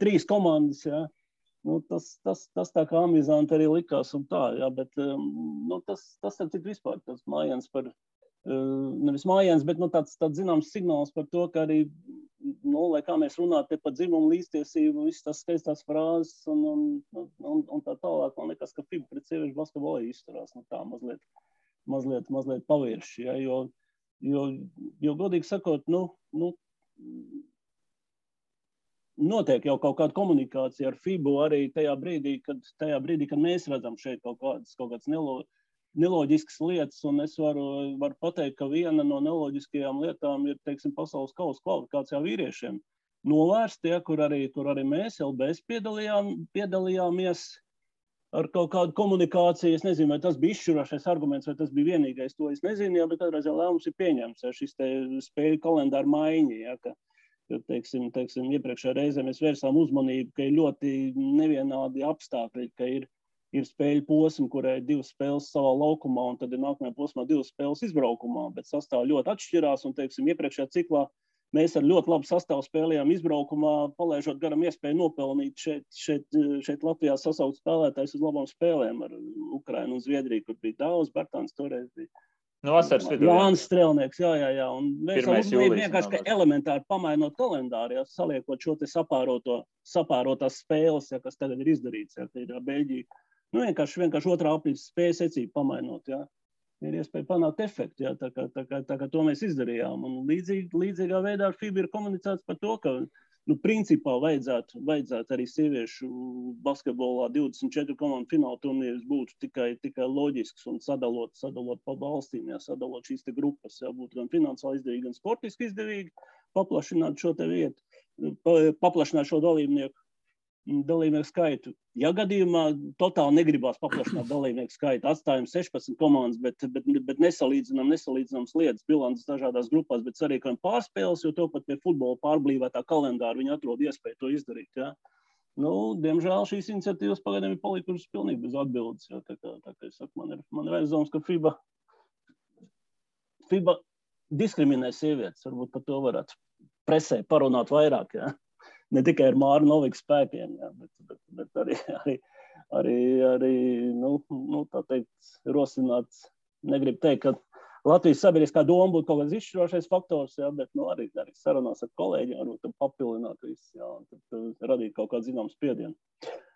3 komandas, ja. Tas tā kā amizanti arī likās un tā, ja, bet tas ir cik vispār, tas mājiens par nevis mājiens, bet tāds zināms signāls par to, ka arī, lai kā mēs runātu par dzimumu līdztiesību, visas tās skaistās frāzes un tā tālāk, man liekas, ka FIBA pret sieviešu basketbolu izturās, tā mazliet pavirši, ja, jo godīgi sakot, notiek jau kaut kāda komunikācija ar FIBU arī tajā brīdī, kad mēs redzam šeit kaut kādas neloģiskas lietas, un es varu pateikt, ka viena no neloģiskajām lietām ir, teiksim, pasaules kausa kvalifikācijā vīriešiem novērst, ja, kur arī mēs LBS piedalījāmies ar kaut kādu komunikāciju. Es nezinu, vai tas bija izšķirošais arguments, vai tas bija vienīgais, to es nezinu, ja, bet kādreiz lēmums ir pieņemts, ja, šis te spēļu kalendāra maiņa, ja, ka teiksim, iepriekšējā reizē mēs vērsām uzmanību, ka ir ļoti nevienādi apstākļi, ka ir spēļu posmi, kurai ir 2 spēles savā laukumā, un tad ir nākamajā posmā 2 spēles izbraukumā, bet sastāvi ļoti atšķirās, un, teiksim, iepriekšējā ciklā mēs ar ļoti labu sastāvu spēlējām izbraukumā, palaižot garam iespēju nopelnīt šeit Latvijā sasaukt spēlētājs uz labām spēlēm ar Ukrainu un Zviedriju, kur bija daudz, Bertāns toreiz bija. Vasaras vidū. Jānis Strelnieks, jā. Un mēs vienkārši elementāri pamainot kalendāru, ja, saliekot šo te sapārotās spēles, ja, kas tagad ir izdarīts, ja, ir Beļģija. Vienkārši otrā aprīļa spēju secību pamainot, ja. Ir iespēja panākt efektu, ja, tā kā to mēs izdarījām. Un līdzīgā veidā ar FIBA ir komunicēts par to, ka principā vajadzētu arī sieviešu basketbolā 24 komandu fināla turnīrs būtu tikai loģisks un sadalot pa valstīm, sadalot šīs te grupas, būtu gan finansiāli izdevīgi, gan sportiski izdevīgi, paplašināt šo te vietu, paplašināt šo dalībnieku skaitu. Ja gadījumā totāli negribās paplašināt dalībnieku skaitu, atstājam 16 komandas, bet nesalīdzināms lietas, bilances dažādās grupās, bet sarīkojam pārspēles, jo to pat pie futbola pārblīvētā kalendāra viņi atrod iespēju to izdarīt. Ja? Diemžēl šīs iniciatīvas pagaidām ir palikušas pilnīgi bez atbildes. Ja? Tā kā es saku, man ir aizdoms, ka FIBA diskriminē sievietes, varbūt par to varētu presē parunāt vairāk. Ja? Ne tikai ar Māru Noviku spēkiem, bet arī tā teikt, rosināt, negribu teikt, ka Latvijas sabiedriskā doma būtu kaut kāds izšķirošais faktors, bet arī sarunās ar kolēģiem, varbūt papildināt visu, un tad radīt kaut kādu zināmu spiedienu.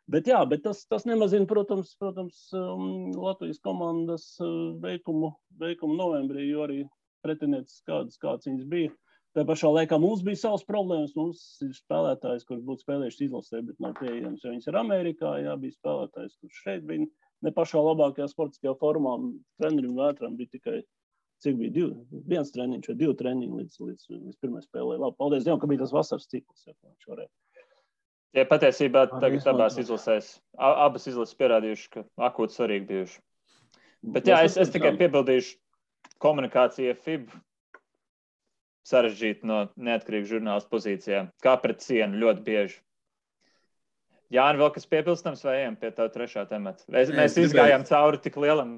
Bet tas nemazina, protams, Latvijas komandas veikumu novembrī, jo arī pretinieces kāds viņas bija. Tā pašā laikā mums bija savas problēmas, mums ir spēlētājs, kurš būtu spēlējuši izlasē, bet nav pieejams, jo viņas ir Amerikā, bija spēlētājs, kurš šeit bija ne pašā labākajā sportiskajā formā, trenerim Vētram bija tikai, cik bija, viens treniņš vai 2 treniņi līdz pirmai spēlē. Labi, paldies Dievam, ka bija tas vasaras cikls, viņš varēja. Ja patiesībā tagad abās izlasēs, abas izlases pierādījuši, ka akūti svarīgi bijuši. Bet es tikai piebildīšu komunikācija FIBA. Sarežģīt no neatkarīgu žurnālistu pozīcijām. Kā pret sienu ļoti bieži. Jāni, vēl kas piepilstams vai ejam pie tavu trešā temata? Mēs izgājām cauri tik lielam.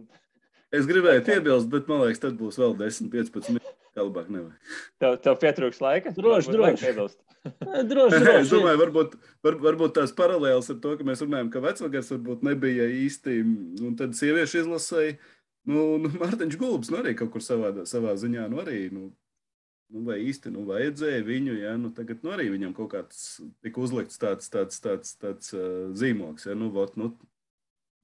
Es gribēju piebilst, bet man liekas, tad būs vēl 10-15 minūtes. Kā labāk nevajag. Tev pietrūks laika? Droši. Es domāju, varbūt tās paralēles ar to, ka mēs runājam, ka vecvagars varbūt nebija īsti, un tad sieviešu izlasēja, Mārtiņš Gulbs, arī kaut kur savā ziņā, arī, vai īsti vajadzēja viņu, tagad arī viņam kaut kāds tika uzlikts tāds zīmoks,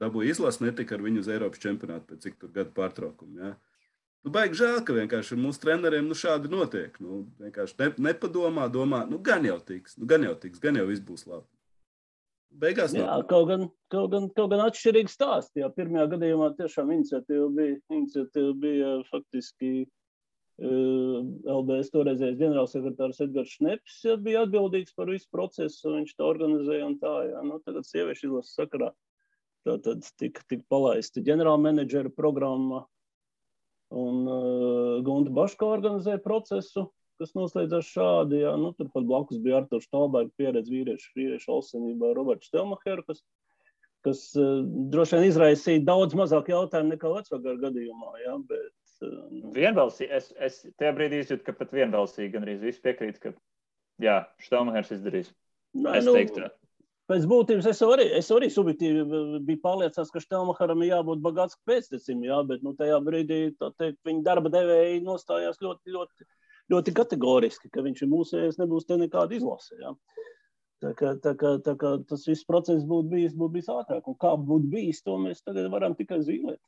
dabūja izlas, netika ar viņu uz Eiropas čempionātu pēc cik tur gadu pārtraukumu, baigi žēl, ka vienkārši mūsu treneriem šādi notiek, vienkārši nepadomā, domā, gan jau tiks, gan jau viss būs labi. Beigās kaut gan atšķirīgi stāsti, pirmajā gadījumā tiešām iniciatīva bija faktiski LBS toreizējais ģenerālsekretārs Edgars Šneps bija atbildīgs par visu procesu, viņš to organizēja un tā, tagad sieviešu izlases sakarā tātad tika palaista ģenerālmenedžera programma un Gunta Baško organizēja procesu, kas noslēdzās šādi, turpat blakus bija Arturs Štalberga pieredze vīriešu olsenībā Roberts Stelmacher, kas droši vien izraisīja daudz mazāk jautājumu nekā vecvagara gadījumā, bet vienbalsīgi. Es tajā brīdī izjūtu, ka pat vienbalsīgi gan arī visi piekrīt, ka Štelmachers izdarīs. Es teiktu. Pēc būtības es arī subjektīvi biju pārliecināts, ka Štelmacheram ir jābūt bagāts pēctecim, bet tajā brīdī viņa darba devēji nostājās ļoti, ļoti, ļoti kategoriski, ka viņš ir mūsējais, nebūs te nekāda izlase. Tā kā tas viss process būtu bijis ātrāk. Un kā būtu bijis, to mēs tagad varam tikai zīmēt.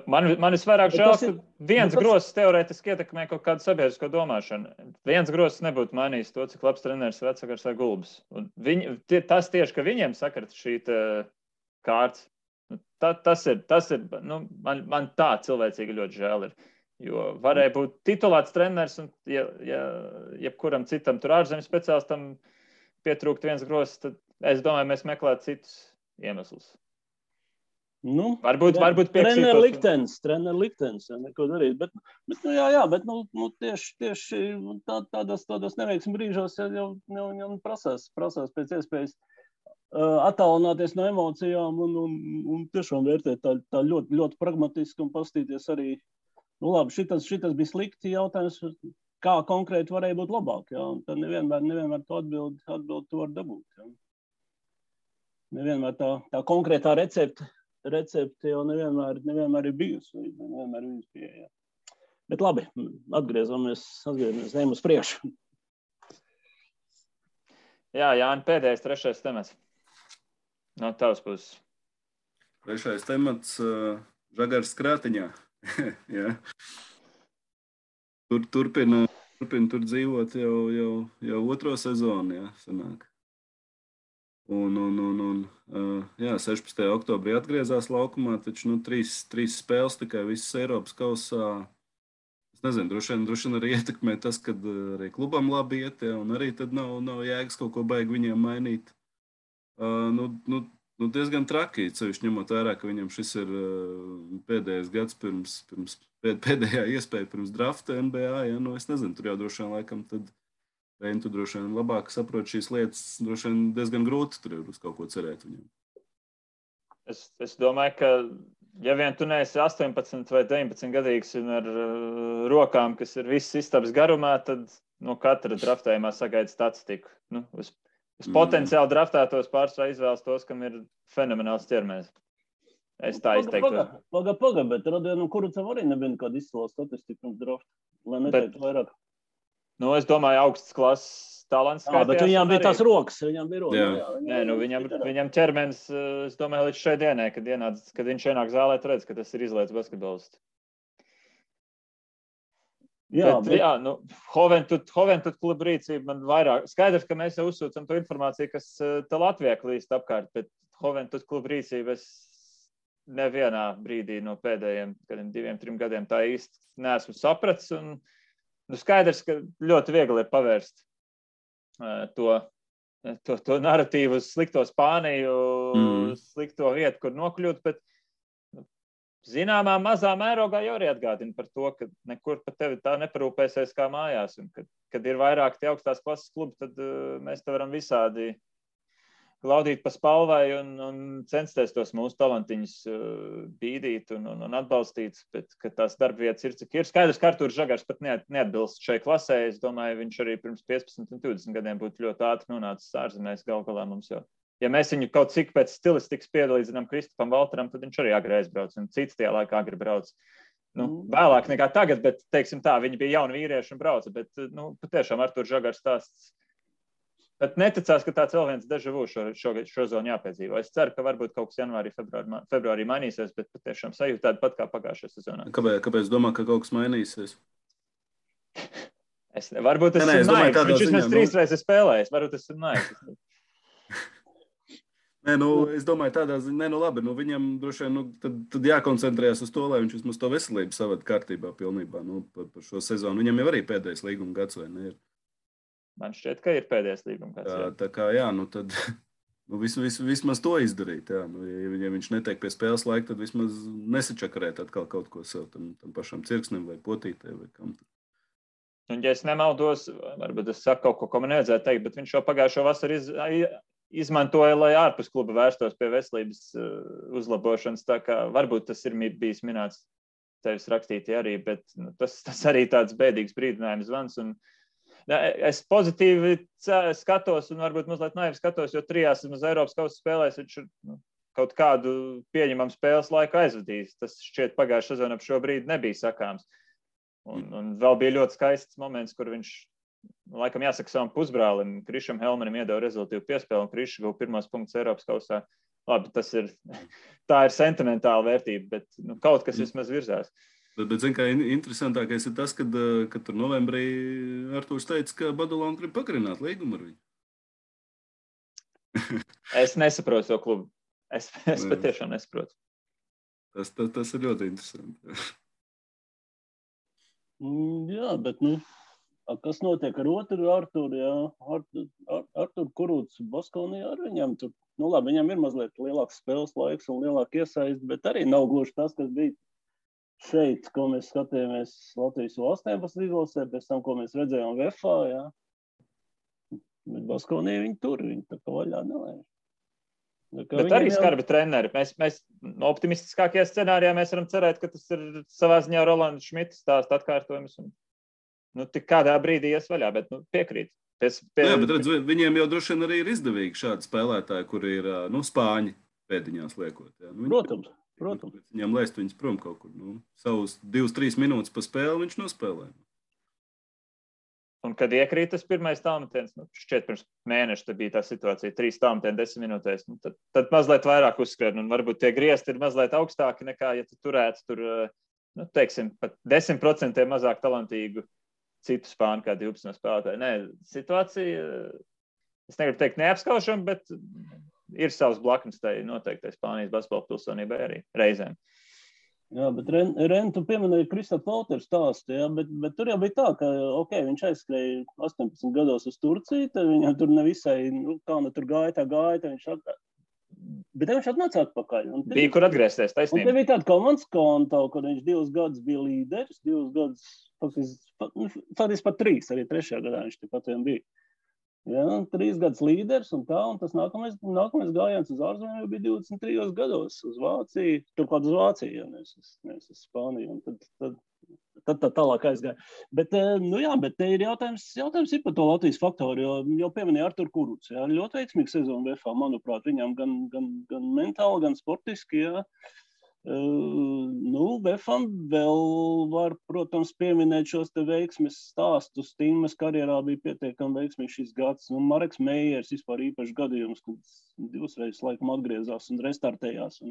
Man visvairāk žēl, ka viens grosis teorētiski ietekmē kaut kādu sabiedrisko domāšanu. Viens grosis nebūtu mainījis to, cik labs treneris vecvagars vai Gulbs. Tas tieši, ka viņiem sakart šī kārts, tas ir man tā cilvēcīgi ļoti žēl ir. Jo varēja būt titulēts treneris un jebkuram citam tur ārzemju speciālistam pietrūkt viens grosis, tad es domāju, mēs meklētu citus iemeslus. Varbūt trener liktenis, neko darīt, bet tieši tādos neveiksmi brīžos jau prasās pēc iespējas attālināties no emocijām un tiešām vērtēt tā ļoti, ļoti pragmatiski un pastīties arī, labi, šitas bija slikti jautājums, kā konkrēti varēja būt labāk, un tad nevienmēr to atbildi to var dabūt, Nevienmēr tā konkrētā recepte jau nevienmēr ir bijusi, nevienmēr ir pieeja. Bet labi, atgriezamies, ejam uz priekšu. Jā, Jāni, pēdējais, trešais temats. No tavas puses. Trešais temats Žagars Krātiņā. Turpina Turpina tur dzīvot jau otro sezonu, jā, sanāk. Jā, 16. oktobrī atgriezās laukumā, taču trīs spēles tikai visas Eiropas kausā. Es nezinu, droši vien arī ietekmē tas, ka arī klubam labi iet, jā, un arī tad nav jēgas kaut ko baigi viņiem mainīt. Diezgan traki, cevišķi ņemot vērā, ka viņam šis ir pēdējais gads pēdējā iespēja pirms drafta NBA. Ja? Es nezinu, tur jau droši vien laikam tad tu droši vien labāk saproti šīs lietas, droši vien diezgan grūti tur ir uz kaut ko cerēt viņam. Es domāju, ka ja vien tu neesi 18 vai 19 gadīgs un ar rokām, kas ir viss istabas garumā, tad no katra draftējumā sagaida statistiku. Uz potenciāli draftētos pārsvarā izvēlas tos, kam ir fenomenāls ķermenis. Es tā izteiktu. Paga, bet Rodionu Kurucam arī nebija nekāda izcila statistika pirms drafta, lai neteiktu vairāk. Es domāju, augsts klases talants. Bet viņām bija tās rokas. Viņām bija rokas. Viņam ķermenis, es domāju, līdz šai dienai, kad viņš ienāk zālē, redz, ka tas ir izlaists basketbolists. Hoventud kluba rīcība man vairāk. Skaidrs, ka mēs jau uzsūcam to informāciju, kas te Latvijā klīst apkārt, bet Hoventud kluba rīcība es nevienā brīdī no pēdējiem 2-3 gadiem tā īsti neesmu sapratis. Un, skaidrs, ka ļoti viegli ir pavērst to naratīvu uz slikto Spāniju, slikto vietu, kur nokļūt, bet zināmā mazā mērogā jau arī atgādina par to, ka nekur par tevi tā neparūpēsies kā mājās. Un kad ir vairāk tie augstās klases klubi, tad mēs te varam visādi glaudīt pa spalvai un censties tos mūsu talantiņus bīdīt un atbalstīt, bet ka tās darbvietas ir, cik ir. Skaidrs, ka Artūrs Žagars pat neatbilst šai klasē. Es domāju, viņš arī pirms 15 un 20 gadiem būtu ļoti ātri nonācis ārzemēs galā mums jau. Ja mēs viņu kaut cik pēc stilistikas piedalīdzinām Kristupam Valteram, tad viņš arī agri aizbrauc, un cits tajā laikā agri brauc. Vēlāk nekā tagad, bet, teiksim tā, viņi bija jauni vīrieši un brauca, bet, patiešām Artūrs Žagars stāsts. Bet neticās, ka tāds vēl viens deja vu šo zonu jāpiedzīvo. Es ceru, ka varbūt kaut kas janvārī, februārī mainīsies, bet patiešām sajūta tāda pat kā pagājušajā sezonā. Kāpēc domā, ka kaut kas mainīsies? Varbūt es esmu naivs. Viņš vismaz 3 reizes spēlējis. Varbūt es esmu naivs. Es domāju, tādā ziņā, labi, viņam droši vien tad jākoncentrējas uz to, lai viņš vismaz to veselību savada kārtībā pilnībā par šo sezonu. Viņam jau arī pēdējais līguma gads, vai ne? Man šķiet, ka ir pēdējais līguma gads. Tā kā, tad vismaz to izdarīt. Jā. Ja viņš netiek pie spēles laika, tad vismaz nesačakarēt atkal kaut ko sev tam pašam cirksnim vai potītē vai kam. Un, ja es nemaldos, varbūt es saku kaut ko, ko man nevajadzētu teikt, bet viņš jau pagājušo vasaru izmantoja, lai ārpus kluba vērstos pie veselības uzlabošanas. Tā kā varbūt tas ir bijis minēts tevis rakstītī arī, bet tas arī tāds bēdīgs brīdinājums zvans. Un, es pozitīvi skatos un varbūt mazliet naivi skatos, jo 3 vismaz Eiropas kausa spēlēs viņš ir kaut kādu pieņemamu spēles laiku aizvadījis. Tas šķiet pagājušā sezonā ap šo brīdi nebija sakāms. Un vēl bija ļoti skaists moments, kur viņš, laikam jāsaka savam pusbrālim, Krišam Helmanim iedeva rezultīvu piespēli, un Krišs guva 1 punktus Eiropas kausā. Labi, tā ir sentimentāla vērtība, bet kaut kas vismaz virzās. Bet zin, kā interesantākais ir tas, kad tur novembrī Artūrs teica, ka Badalona grib pagarināt līgumu ar viņu. Es nesaprotu to klubu. Es patiešām nesaprotu. Tas ir ļoti interesanti. Jā, bet, kas notiek ar otru Artūru, jā? Artūru Kurūts Baskonijā ar viņam tur, labi, viņam ir mazliet lielāks spēles laiks un lielāk iesaist, bet arī nav gluži tas, kas bija šeit, ko mēs skatījāmies Latvijas U18 izlasē, pēc tam, ko mēs redzējām VFA, jā. Bet Baskonijā viņi tur, viņi tā kā vaļā nelēž. Bet arī skarbi treneri. Mēs optimistiskākajā scenārijā mēs varam cerēt, ka tas ir savā ziņā Rolanda Šmita stāsta atkārtojums. Un, tik kādā brīdī ies vaļā, bet piekrīt. Jā, bet redz, viņiem jau droši vien arī ir izdevīgi šādi spēlētāji, kuri ir spāņi pēdiņās liekot. Jā. Protams. Viņam laist viņus prom kaut kur. Savus 2-3 minūtes pa spēli viņš nospēlē. Un, kad iekrīt tas pirmais tālmetiens, šķiet pirms mēneša bija tā situācija, 3 tālmetieni 10 minūtēs, tad mazliet vairāk uzskrien, un varbūt tie griezti ir mazliet augstāki nekā, ja tu turētu tur, teiksim, pat 10% mazāk talantīgu citu spāņu kā 12 spēlētāju. Nē, situācija, es negribu teikt neapskaušam, bet ir savs blaknes tai noteiktai Spānijas basketbola pilsonībai arī reizēm. Jā, bet Ren, tu pieminēji Kristofu Polteru stāstu, jā, bet tur jau bija tā, ka, viņš aizskrēja 18 gados uz Turciju, tad viņam tur nevisai, kā tur gāja, bet viņš atnāca atpakaļ. Bija, kur atgriezties, taisnība. Un te bija tāda komandas konta, kur viņš 2 gadus bija līderis, 2 gadus, faktiski pat 3, arī 3. gadā viņš tepat vien bija. Jā, 3 gadus līderis un tā, un tas nākamais gājiens uz ārzemēm bija 23 gados uz Vāciju, turklāt uz Vāciju, ja nevis uz Spāniju, un tad tālāk aizgāja. Bet, bet te ir jautājums ir par to Latvijas faktoru, jo jau pieminēja Artur Kurucs, jā, ļoti veiksmīga sezona VFA, manuprāt, viņam gan mentāli, gan sportiski, jā. VFAM vēl var, protams, pieminēt šos te veiksmes stāstus. Tīmas karjerā bija pietiekami veiksmīgs šis gads. Mareks Meijers vispār īpašs gadījums, kad 2 reizes laikam atgriezās un restartējās.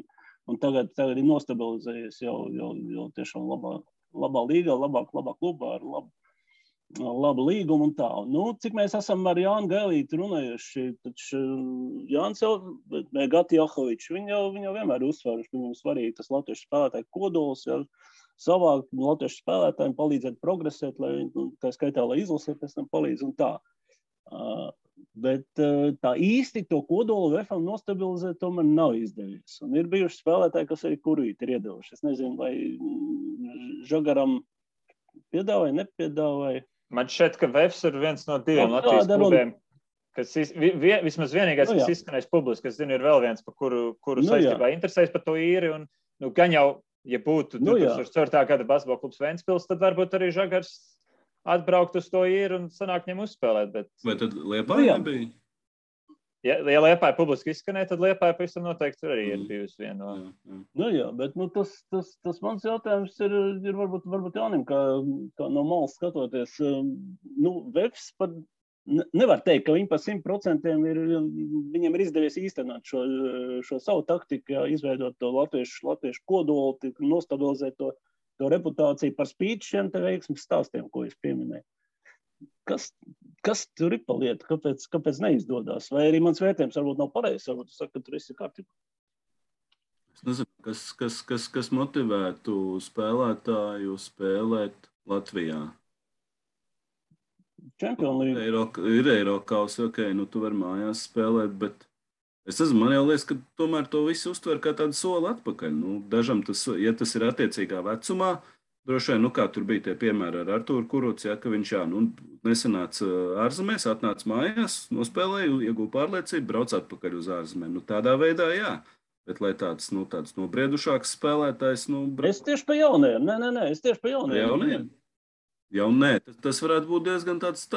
Un tagad ir nostabilizējies jau tiešām labā līgā, labā klubā ar labu līgumu un tā. Cik mēs esam ar Jānu Gailīti runājuši, taču Jānis jau, Gati Jahovičs, viņi jau vienmēr uzsvēruši, ka viņam svarīgi tas latviešu spēlētāju kodols, ja, savākt latviešu spēlētājiem, palīdzēt progresēt, lai tā skaitā, lai izlasē pēc tam palīdz un tā. Bet tā īsti to kodolu VFAM nostabilizēt tomēr nav izdevies. Un ir bijuši spēlētāji, kas arī kurvīti ir iedevuši. Es nezinu, vai Žagaram piedāvāja, nepiedāvāja. Man šķiet, ka VFS ir viens no 2 Latvijas klubiem, kas vismaz vienīgais, kas izskanēs publiski, es zinu, ir vēl viens, par kuru saistībā interesēs par to īri, un gan jau, ja būtu 2004. gada basketbola klubs Ventspils, tad varbūt arī Žagars atbraukt uz to īri un sanāk viņam uzspēlēt. Bet... Vai tad Liepāja nebija? Ja Liepāja publiski izskanēja, tad Liepāja pavisam noteikti arī ir bijusi viena no... bet tas mans jautājums ir varbūt Jānim, kā no malas skatoties. VFS pat nevar teikt, ka viņi pa 100% viņiem ir izdevies īstenot šo savu taktiku, izveidot to latviešu kodolu, nostabilizēt to reputāciju par spīti šiem te veiksmes stāstiem, ko es pieminēju. Kas tur ir pa lietu? Kāpēc neizdodas? Vai arī mans vērtējums varbūt nav pareizs, varbūt tu saki, ka tur esi kārtībā? Es nezinu, kas motivētu spēlētāju spēlēt Latvijā? Champions League. Ir Eirokaus, tu vari mājās spēlēt, bet es nezinu, man jau liekas, ka tomēr to visu uztver kā tādu soli atpakaļ. Dažam ja tas ir attiecīgā vecumā, droši vien, kā tur bija tie piemēri ar Arturu Kurucu, ka viņš nesanāca ārzemēs, atnāca mājās, nospēlēja, ieguva pārliecību, brauc atpakaļ uz ārzemēm. Tādā veidā, jā. Bet, lai tāds nobriedušāks spēlētājs... Es tieši pa jaunajiem. Nē, es tieši pa jaunajiem. Jaunē, tas varētu būt diezgan tāds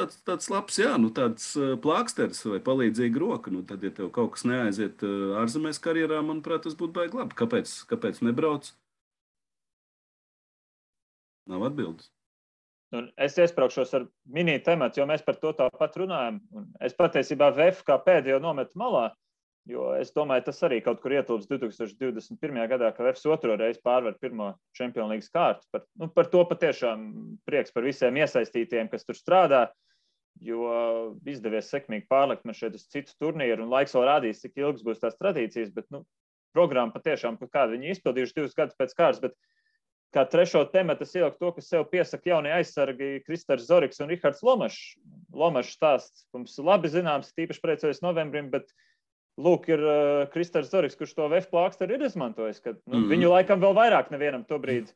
labs, tāds plāksteris vai palīdzīga roka. Tad, ja tev kaut kas neaiziet ārzemēs karjerā, manuprāt, tas būtu baigi labi. Kāpēc nebrauc? Nav atbildes. Es iespraukšos ar mini tematu, jo mēs par to tāpat runājam. Es patiesībā VF kā pēdējo nometu malā, jo es domāju, tas arī kaut kur ietilps 2021. gadā, ka VFS 2. reizi pārvar pirmo Champions League kārtu. Par to patiešām prieks par visiem iesaistītiem, kas tur strādā, jo izdevies sekmīgi pārlikt man šeit uz citu turnīru, un laiks vēl rādīs, cik ilgs būs tās tradīcijas, bet programma patiešām, kādu viņi izpildījuši 2 gadus pēc kārtas, bet kā 3. tematu es ieliku to, kas sev piesaka jaunie aizsargi Kristers Zoriks un Rihards Lomašs. Lomašs stāsts mums labi zināms, tīpaši priecājas novembrim, bet lūk ir Kristers Zoriks, kurš to VF plāksteri ir izmantojis, ka viņu laikam vēl vairāk nevienam to brīdi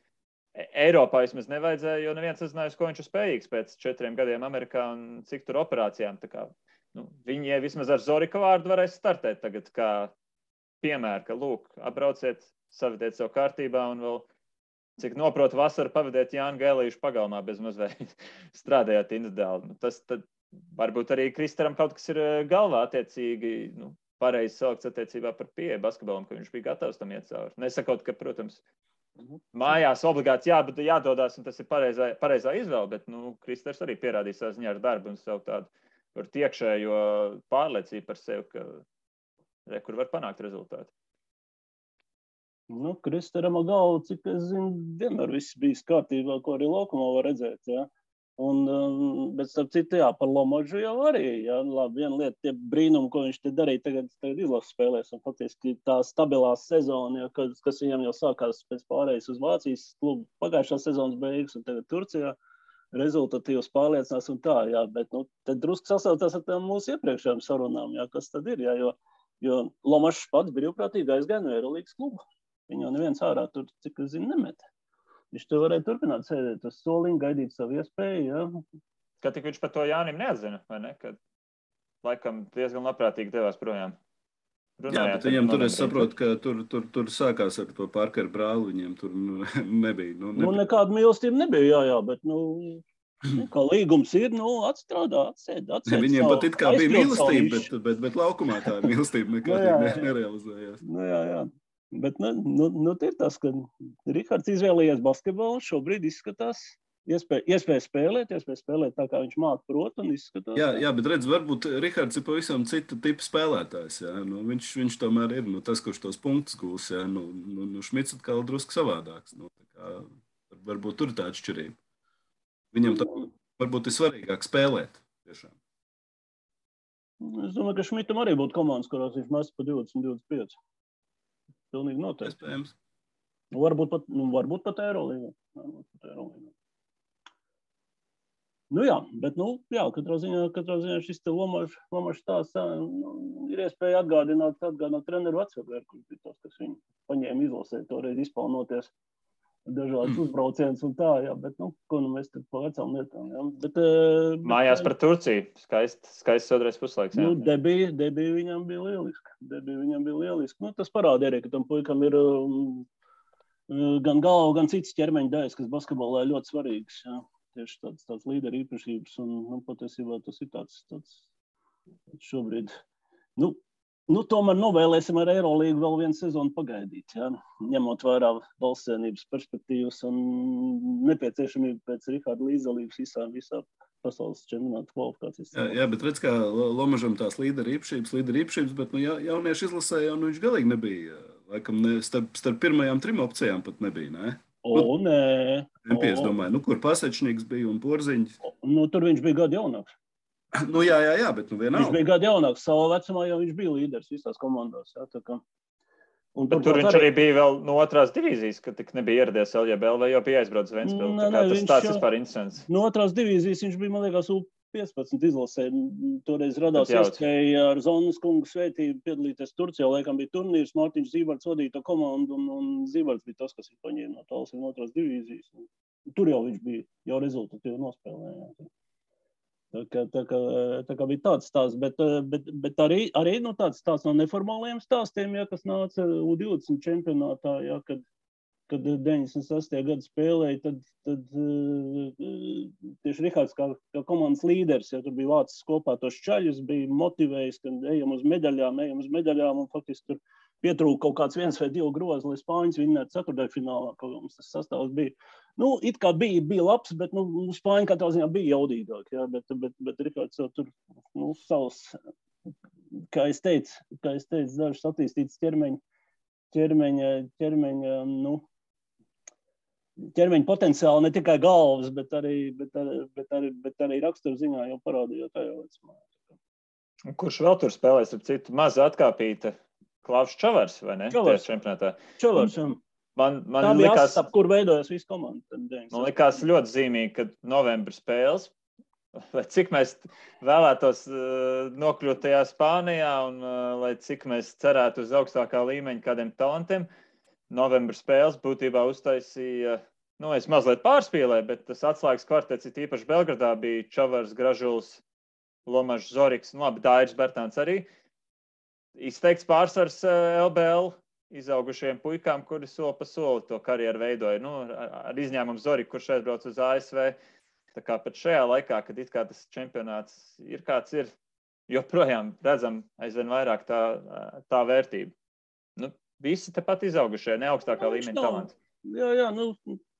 Eiropā vismaz nevajadzēja, jo neviens nezināja, ko viņš ir spējīgs pēc 4 gadiem Amerikā un cik tur operācijām. Tā kā, viņi vismaz ar Zorika vārdu varēs startēt tagad kā piemēru, ka lūk, atbrauciet, savediet sev kārtībā un vēl cik noprotu vasaru pavadēt Jānu Gailīšu pagalmā bez mazliet strādājot individuāli. Tas tad varbūt arī Kristaram kaut kas ir galvā attiecīgi, pareizi salikts attiecībā par pieeju basketbolam, ka viņš bija gatavs tam iet cauri. Nesakot, ka, protams, mājās obligāti jādodās, un tas ir pareizā izvēle, bet Kristers arī pierādīja savu ziņā ar darbu un savu tādu iekšējo pārliecību par sevi, ka kur var panākt rezultātu. Kristaram galvu, cik es zinu, vienmēr viss bijis kārtībā, ko arī laukumā var redzēt, jā. Bet starp citu, jā, par Lomažu jau arī. Jā, labi, viena lieta, tie brīnumi, ko viņš te darīja tagad izlases spēlēs, un faktiski tā stabilā sezona, jā, kas viņam jau sākās pēc pārējais uz Vācijas klubu pagājušā sezonas beigas, un tagad Turcijā rezultatīvs pārliecinās un tā, jā, bet, tad drusku sasaucās ar tām mūsu iepriekšējām sarunām, jā, kas tad ir, jā, jo Lomažs pats brīvprātīgi aizgāja no Eirolīgas kluba. Viņu neviens ārā tur, cik es zinu, nemet. Viņš tur varēja turpināt sēdēt uz soliņa, gaidīt savu iespēju, jā. Kad tik viņš par to Jānim neatzina, vai ne? Kad laikam diezgan labprātīgi devās projām. Jā, bet viņam tur es saprotu, ka tur sākās ar to Parkeru brāli, viņiem tur nebija. Nekāda mīlestība nebija, jā, bet, kā līgums ir, atstrādā, atsēd. Viņiem pat it kā bija mīlestība, bet laukumā tā mīlestība nekādīgi nerealizējās. Jā. Bet ir tas, ka Rihards izvēlējies basketbolu, šobrīd izskatās iespēja spēlēt tā, kā viņš māk prot un izskatās. Jā, bet redz, varbūt Rihards ir pavisam cita tipa spēlētājs. Jā. Viņš tomēr ir tas, kurš tos punktus gūs. Jā. Šmits atkal drusku savādāks. Varbūt tur ir tā atšķirība. Viņam varbūt ir svarīgāk spēlēt. Tiešām. Es domāju, ka Šmitam arī būtu komandas, kurās viņš mest pa 20-25. Pilnīgi noteikti. Iespējams. Varbūt pat Eirolīgā. Jā, bet, katrā ziņā šis te Lomažs tās ir iespēja atgādināt treneru vecāku, kurš bija tas, kas viņu paņēma izlasē, toreiz izpaunoties dažādas uzbrauciens un tā, jā, bet, ko mēs tad pa vecām lietām, jā. Bet, mājās par Turciju. Skaists otrais puslaiks, jā. Debija viņam bija lieliski. Tas parāda arī, ka tam puikam ir gan galva, gan cits ķermeņa daļas, kas basketbolā ir ļoti svarīgas, jā. Tieši tāds līderu īpašības, un patiesībā tas ir tāds šobrīd. Tomēr novēlēsim ar Eirolīgu vēl vienu sezonu pagaidīt, jā, ņemot vērā valstsienības perspektīvas un nepieciešamību pēc Riharda līdzdalības visā pasaules čempionāta kvalifikācijas. Jā, bet redz, kā Lomažam tās līderu īpašības, bet jauniešu izlasē jau viņš galīgi nebija. Laikam starp pirmajām 3 opcijām pat nebija, ne? Nē. Es domāju, kur Pasečniks bija un Porziņš. Tur viņš bija gadu jaunāks. Jā, bet vienalga. Viņš bija gadu jaunāks. Savā vecumā jau viņš bija līderis visās komandās. Jā, tā kā. Bet tur viņš arī bija vēl no 2. divīzijas, kad tik nebija ieradies LJBL, vai jau bija aizbraucis Ventspili. Tas vispār interesants. No 2. divīzijas viņš bija, man liekas, U15 izlasē. Toreiz radās iespēja ar Zonas kungu svētību piedalīties Turcijā. Laikam bija turnīrs, Mārtiņš Zībarts vadīja to komandu, un Zībarts bija tas, kas viņu paņēma no tālas no 2. divīzijas. Tur jau viņš bija, jau rezultatīvi nospēlēja. Tā kā bija tāds stāsts, bet arī tāds stāsts no neformālajiem stāstiem, jā, kas nāca U20 čempionātā, jā, kad 96. gadu spēlēja, tad tieši Rihards kā komandas līderis, ja tur bija vācis kopā tos čaļus, bija motivējis, ka ejam uz medaļām, un faktiski tur pietrūka kaut kāds 1 vai 2 grozi, lai Spāņas vinnētu ceturtdaļfinālā, kaut kā mums tas sastāvs bija. It kā bija labs, bet Spāņi katrā ziņā bija jaudīgāk, jā, bet Rihards jau tur, savs, kā es teicu, dažs attīstīts ķermeņa potenciāli, ne tikai galvas, bet arī raksturziņā jau parādīja tajā vecumā. Kurš vēl tur spēlēs, ar citu maza atkāpīta? Klaus Čavars, vai ne? Čavars, jā. Man tā bija likās, ap kur veidojas visu komandu. Man likās ļoti zīmīgi, ka novembra spēles, vai cik mēs vēlētos nokļūt tajā Spānijā, un lai cik mēs cerētu uz augstākā līmeņa kādiem talantiem, novembra spēles būtībā uztaisīja, es mazliet pārspīlēju, bet tas atslēgas kvartets, ir īpaši Belgradā, bija Čavars, Gražuls, Lomažs, Zoriks, labi, Dairis Bertāns arī. Izteikts pārsvars LBL izaugušiem puikām, kuri soli pa soli to karjeru veidoja. Ar izņēmumu Zoriku, kurš aizbrauc uz ASV. Tā kā pat šajā laikā, kad it kā tas čempionāts ir kāds ir, joprojām redzam aizvien vairāk tā vērtība. Visi tepat izaugušie, ne augstākā līmeņa talanti. Jā.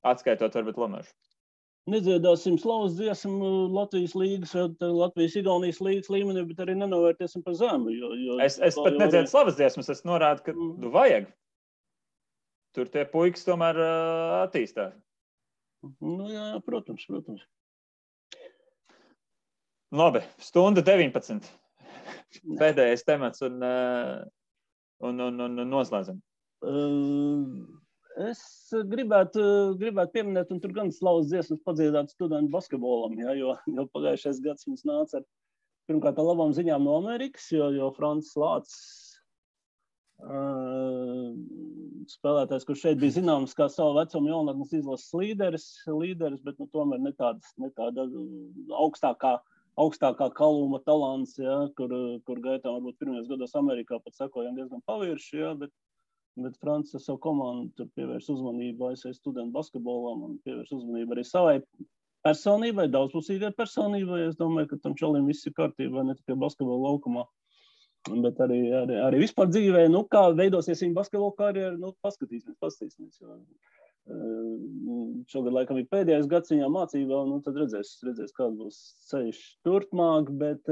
Atskaitot varbūt Lomažu. Nedziedāsim slavas dziesmu Latvijas līgas vai Latvijas-Igaunijas līgas līmenī, bet arī nenovērtēsim par zemu. Es pat nedziedu slavas dziesmas, es norādu, ka vajag. Tur tie puikas tomēr attīstās. Jā, protams. Labi, stunda 19. Pēdējais temats un noslēdzam. Es gribētu pieminēt, un tur gan slavas dziesmas padziedāt studentu basketbolam, ja, jo pagājušais gads mums nāca ar pirmkārt ar labām ziņām no Amerikas, jo Francis Lācis spēlētājs, kurš šeit bija zināms kā savu vecumu jaunatnes izlases līderis, bet tomēr ne tāda augstākā kaluma talants, ja, kur gaitā varbūt pirmajos gados Amerikā pat sekojam diezgan pavirši, ja, bet Francis savu komandu tur pievērš uzmanību ASV studentu basketbolam un pievērš uzmanību arī savai personībai, daudzpusīgai personībai. Es domāju, ka tam čalim viss ir kārtībā, ne tikai basketbola laukumā, bet arī vispār dzīvē, kā veidosies viņa basketbola karjera, paskatīsimies. Šogad laikam ir pēdējais gads viņā mācībā, tad redzēs, kāds būs ceļš turpmāk, bet,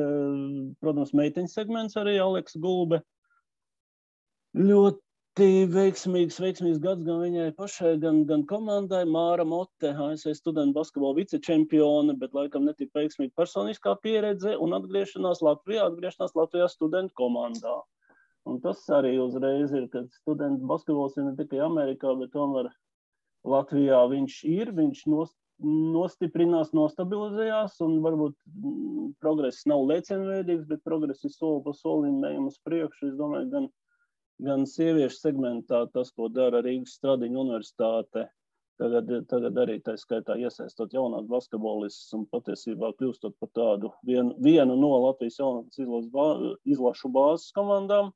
protams, meiteņu segments arī Aleks Gulbe. Ļoti veiksmīgs gads gan viņai pašai, gan komandai. Māra Mote, ASV studentu basketbola vicečempione, bet laikam netik veiksmīga personiskā pieredze un atgriešanās Latvijā studentu komandā. Un tas arī uzreiz ir, kad studentu basketbols ir ne tikai Amerikā, bet tomēr Latvijā viņš nostiprinās, nostabilizējās, un varbūt progress nav lēcienveidīgs, bet progress ir soli pa solim ejam uz priekšu. Es domāju, gan sieviešu segmentā tas, ko dara Rīgas Stradiņu universitāte, tagad arī tā skaitā iesaistot jaunās basketbolistus un patiesībā kļūstot par tādu vienu no Latvijas jaunatnes izlašu bāzes komandām.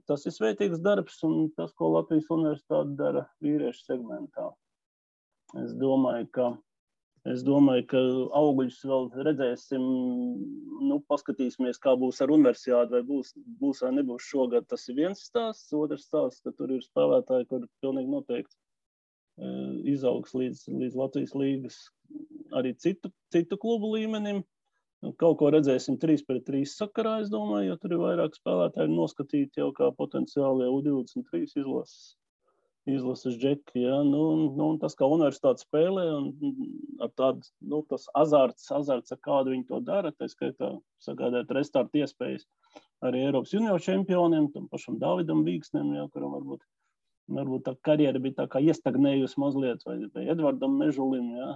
Tas ir svētīgs darbs un tas, ko Latvijas universitāte dara vīriešu segmentā. Es domāju, ka augļus vēl redzēsim, paskatīsimies, kā būs ar universiāti, vai būs vai nebūs šogad. Tas ir viens stāsts, otrs stāsts, ka tur ir spēlētāji, kur pilnīgi noteikti izaugs līdz Latvijas līgas arī citu klubu līmenim. Kaut ko redzēsim 3-3 sakarā, es domāju, jo tur ir vairāk spēlētāji noskatīti jau kā potenciāli U23 izlases džeki, ja, un tas, kā universitāte spēlē, un ar tādu, tas azarts, ar kādu viņi to dara, tā skaitā sagādāt restartu iespējas arī Eiropas junior čempioniem, tam pašam Davidam Vīksnem, ja, kuram varbūt tā karjera bija tā kā iestagnējusi mazliet, vai Edvardam Mežulim, ja.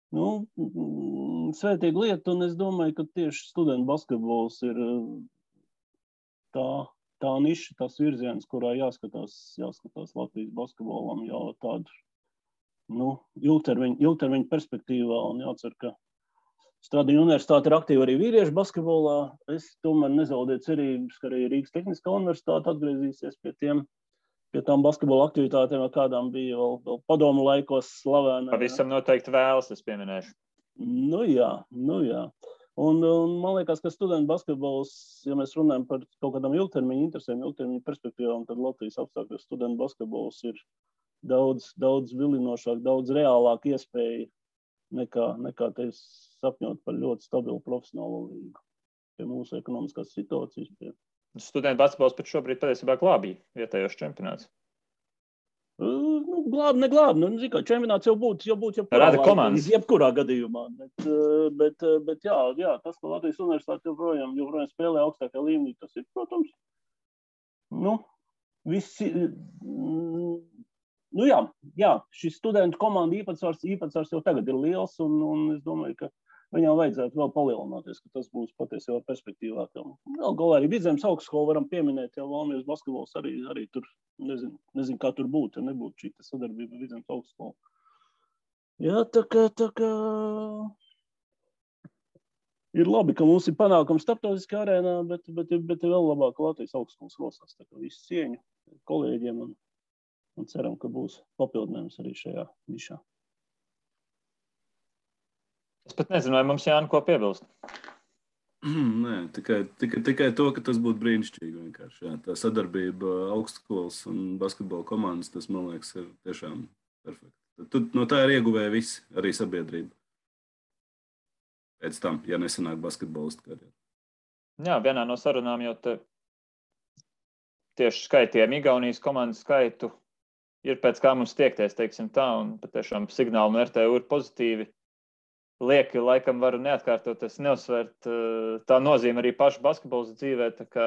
Svētīga lieta, un es domāju, ka tieši studentu basketbols ir tā niša, tas virziens, kurā jāskatās Latvijas basketbolam jau tādu ilgtermiņu perspektīvā, un jācer, ka Stradiņu universitāte ir aktīva arī vīriešu basketbolā. Es tomēr nezaudēju cerības, ka arī Rīgas Tehniskā universitāte atgriezīsies pie tām basketbola aktivitātēm, kādām bija vēl padomu laikos slavēna. Pavisam noteikti vēlas, es pieminēšu. Jā. Un man liekas, ka studentu basketbols, ja mēs runājam par kaut kādām ilgtermiņu interesēm, ilgtermiņu perspektīvām, tad Latvijas apstākļos studentu basketbols ir daudz vilinošāk, daudz reālāk iespēja nekā te sapņot par ļoti stabilu profesionālo līgu. Pie mūsu ekonomiskās situācijas. Studentu basketbols pat šobrīd patiesībā glābīja vietējos čempionāts. Neglābi. Čempionāts jau būtu jebkurā gadījumā. Bet jā, tas, ka Latvijas universitāte joprojām spēlē augstākā līmenī, tas ir, protams, šis studentu komandu īpatsvars jau tagad ir liels, un es domāju, ka viņam vajadzētu vēl palielināties, ka tas būs patiesībā perspektīvā. Vēl galā arī Vidzemes augstskolu varam pieminēt, jau Valmieras basketbols arī tur, nezinu, kā tur būtu, ja nebūtu šī sadarbība Vidzemes augstskolu. Jā, tā kā ir labi, ka mums ir panākums starptautiskā arēnā, bet ir vēl labāk, ka Latvijas augstskolas rosās. Tā kā visu cieņu kolēģiem un ceram, ka būs papildinājums arī šajā nišā. Es pat nezinu, vai mums Jāni ko piebilst. Nē, tikai to, ka tas būtu brīnišķīgi vienkārši. Jā. Tā sadarbība augstskolas un basketbola komandas, tas, man liekas, ir tiešām perfekti. No tā ir ieguvēja visi, arī sabiedrība. Pēc tam, ja nesanāk basketbolistu karjeru. Jā, vienā no sarunām jau tieši skaitījām Igaunijas komandas skaitu. Ir pēc kā mums tiekties, teiksim tā, un patiešām signāli no RTU ir pozitīvi. lieki, laikam varu neatkārtot, es neuzsvērt tā nozīme arī pašu basketbolas dzīvē, tā kā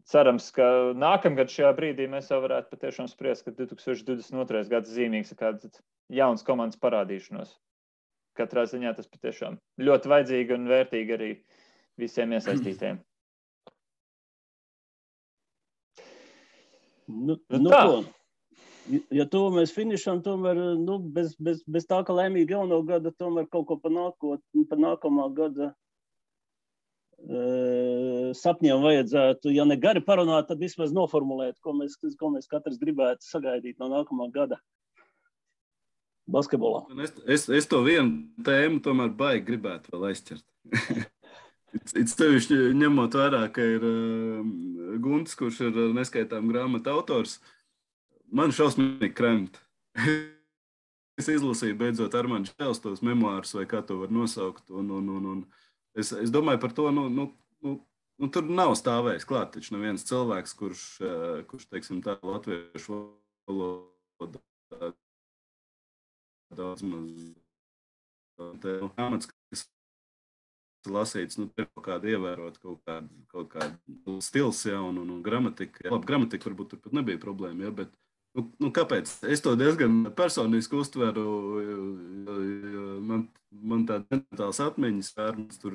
cerams, ka nākamgad šajā brīdī mēs jau varētu patiešām spriest, ka 2022. gads zīmīgs ir kāds jauns komandas parādīšanos. Katrā ziņā tas patiešām ļoti vajadzīgi un vērtīgi arī visiem iesaistītiem. Tā. Ja to mēs finišam, tomēr bez tā, ka laimīgi jauno gada, tomēr kaut ko par nākamā gada sapņiem vajadzētu, ja ne gari parunāt, tad vismaz noformulēt, ko mēs katrs gribētu sagaidīt no nākamā gada basketbolā. Es to vienu tēmu tomēr baigi gribētu vēl aizķert. It sevišķi ņemot vērā, ka ir Guntis, kurš ir neskaitām grāmatu autors, man šausmīgi kremt. Es izlasīju beidzot Armāņa Čēls tos memoārus, vai kā to var nosaukt, un es domāju par to, tur nav stāvējis klāt, taču neviens cilvēks, kurš teiksim tā, latviešu valodā daudz maz grāmatas, kas lasīts, kaut kādu ievērot, kaut kādu stils, ja, un gramatika. Ja, labi, gramatika varbūt tur pat nebija problēma, ja, bet kāpēc? Es to diezgan personiski uztveru, man tāda mentāls atmiņas, Armāns tur,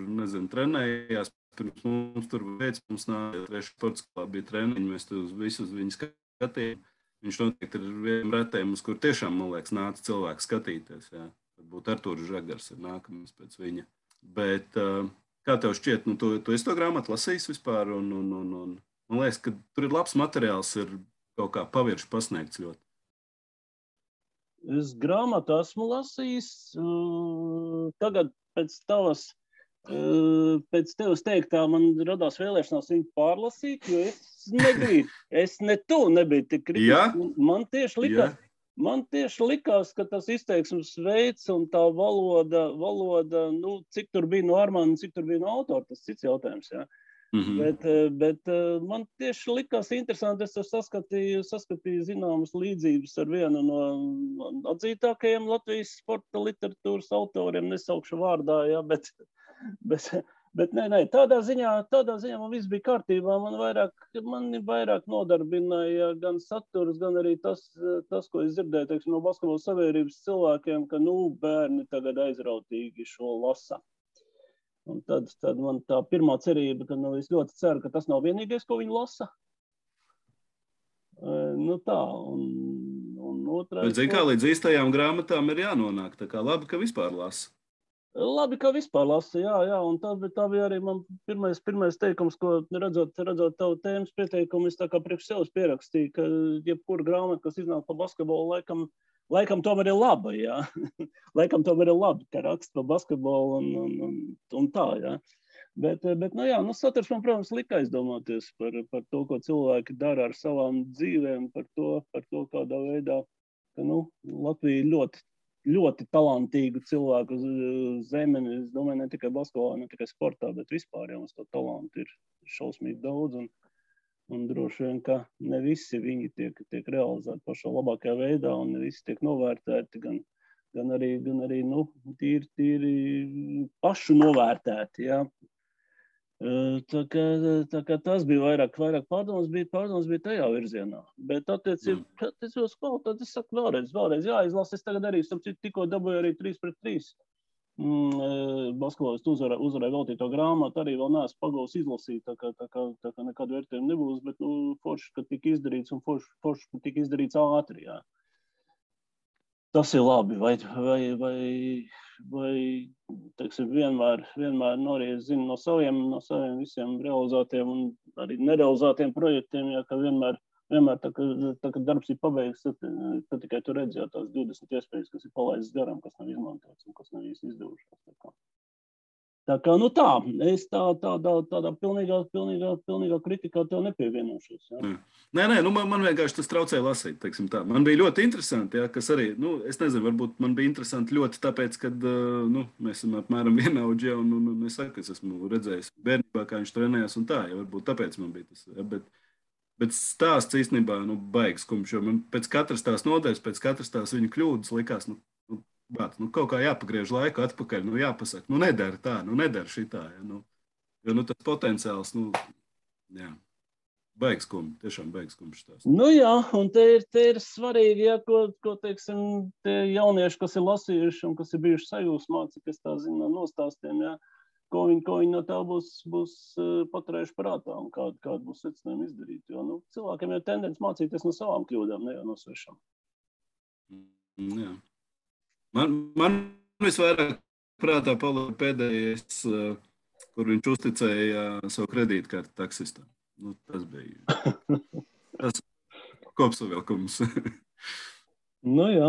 trenējās, pirms mums tur mums nāja, trešā sportskolā bija treniņi, mēs tur visus viņu skatījām. Viņš noteikti ir vienam retējiem, uz kur tiešām, man liekas, nāca cilvēks skatīties. Jā. Varbūt Artūrs Žagars ir nākamais pēc viņa. Bet kā tev šķiet, tu esi to grāmatu lasījis vispār, un man liekas, ka tur ir labs materiāls, ir kaut kā pavirši pasniegts ļoti. Es grāmatu esmu lasījis, tagad pēc tevis teiktā man radās vēlēšanās viņu pārlasīt, jo es tu nebiju tik kritisks. Man tieši likās, ka tas izteiksmes veids un tā valoda, cik tur bija no Armāna, cik tur bija no autora, tas cits jautājums, jā. Bet man tieši likās interesanti, es saskatīju zināmas līdzības ar vienu no atzītākajiem Latvijas sporta literatūras autoriem, nesaukšu vārdā, jā, bet nē, tādā ziņā man viss bija kārtībā, man vairāk nodarbināja gan saturs, gan arī tas, ko es dzirdēju, teiksim, no basketbola sabiedrības cilvēkiem, ka, bērni tagad aizrautīgi šo lasa. Un tad man tā pirmā cerība, ka es ļoti ceru, ka tas nav vienīgais, ko viņi lasa. Tā, un otrais... Bet, zini, kā līdz īstajām grāmatām ir jānonāk, tā kā labi, ka vispār lasa. Labi, ka vispār lasa, jā, un tā bija arī man pirmais teikums, ko redzot tavu tēmas pieteikumu, es tā kā priekš sevis pierakstīju, ka jebkura grāmata, kas iznāk par basketbolu, laikam tomēr ir laba, jā. Laikam tomēr ir labi, ka raksta par basketbolu un tā, jā. Bet saturs man, protams, lika aizdomāties par to, ko cilvēki dara ar savām dzīvēm, par to kādā veidā, ka, Latvija ļoti, ļoti talantīgu cilvēku zemeni, es domāju, ne tikai basketbolā, ne tikai sportā, bet vispār, mums to talantu ir šausmīgi daudz, un droši vien, ka ne visi viņi tiek realizēti pašā labākajā veidā, un ne visi tiek novērtēti, gan arī tīri pašu novērtēti, jā. Tā kā tas bija vairāk pārdomas bija tajā virzienā. Bet attiecībā uz kvalitāti, es saku vēlreiz, jāizlasa, es tagad arī, tikko dabūju arī 3-3. Basketbolistu uzvarēja veltīto grāmatu, arī vēl neesmu pagūs izlasīt, tā kā nekādu vērtējumu nebūs, bet forši, ka tika izdarīts un forši, ka tika izdarīts ātri, jā. Tas ir labi, vai teiksim, vienmēr arī es zinu no saviem visiem realizētiem un arī nerealizētiem projektiem, jā, ka vienmēr tā, kad darbs ir pabeigts, tad tikai tu redzi jau tās 20 iespējas, kas ir palaistas garām, kas nav izmantots un kas nav īsti izdevušās. Tā kā, tā, es tādā pilnīgā kritikā tev nepievienošos. Jā. Nē, man vienkārši tas traucēja lasīt, teiksim tā. Man bija ļoti interesanti, jā, kas arī, es nezinu, varbūt man bija interesanti ļoti tāpēc, kad, mēs esam apmēram vienaudži, un es saku, es esmu redzējis bērnībā, kā viņš trenējās un tā, ja varbūt tāpēc man bija tas, jā, bet stāsts īstenībā, baigs kumš, jo man pēc katras tās nodaļas, pēc katras tās viņa kļūdas likās, bāt, kaut kā jāpagriež laiku atpakaļ, jāpasaka, nedara tā, nedara šitā. Ja, jo tas potenciāls, jā. Baigs kumš, tiešām baigs kumš tās. Jā, un te ir svarīgi, ja, ko teiksim, tie jaunieši, kas ir lasījuši un kas ir bijuši sajūsmā, cik es tā zinu no nostāstiem, ja, ko viņi no tā būs paturējuši prātā un kādu būs secinājumi izdarīt. Jo cilvēkiem ir tendence mācīties no savām kļūdām, ne jau no svešām. Jā. Man visvairāk prātā palika pēdējais, kur viņš uzticēja savu kredītkarti taksistam. Tas bija tas kopsavilkums. Jā.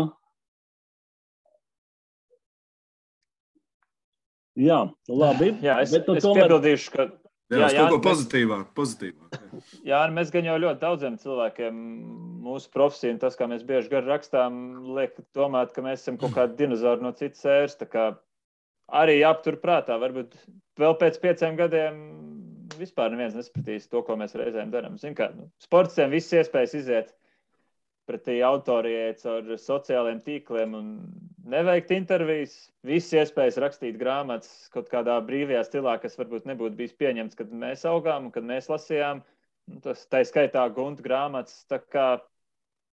Jā, labi. Jā, es piebildīšu, ka... Jā, kaut ko pozitīvāk. Jā, mēs gan jau ļoti daudziem cilvēkiem mūsu profesiju un tas, kā mēs bieži gar rakstām, liek domāt, ka mēs esam kaut kādi dinozauri no citas ēras. Tā kā arī jāaptur prātā. Varbūt vēl pēc 5 gadiem vispār neviens nespratīs to, ko mēs reizēm darām. Zin kā, sportistiem viss iespējas iziet pretī autorijai caur sociālajiem tīkliem un neveikt intervijas. Viss iespējas rakstīt grāmatas kaut kādā brīvajā stilā, kas varbūt nebūtu bijis pieņemts, kad mēs augām un kad mēs lasījām. Tas tā skaitā Gunta grāmatas. Tā kā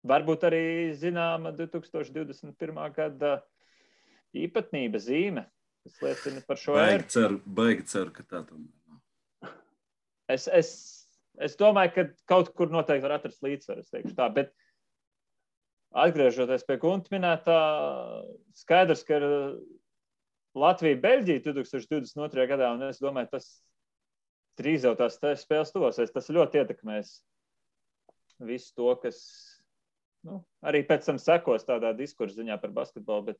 varbūt arī zināma 2021. gada īpatnība zīme, kas liecina par šo ēru. Baigi ceru, ka tā tomēr. Es domāju, ka kaut kur noteikti var atrast līdzsvaru, es teikšu tā, bet atgriežoties pie Gunta minētā, skaidrs, ka ir Latvija-Beļģija 2022. gadā, un es domāju, tas drīz jau tās spēles tuvosies, tas ļoti ietekmēs visu to, kas arī pēc tam sekos tādā diskursa ziņā par basketbolu, bet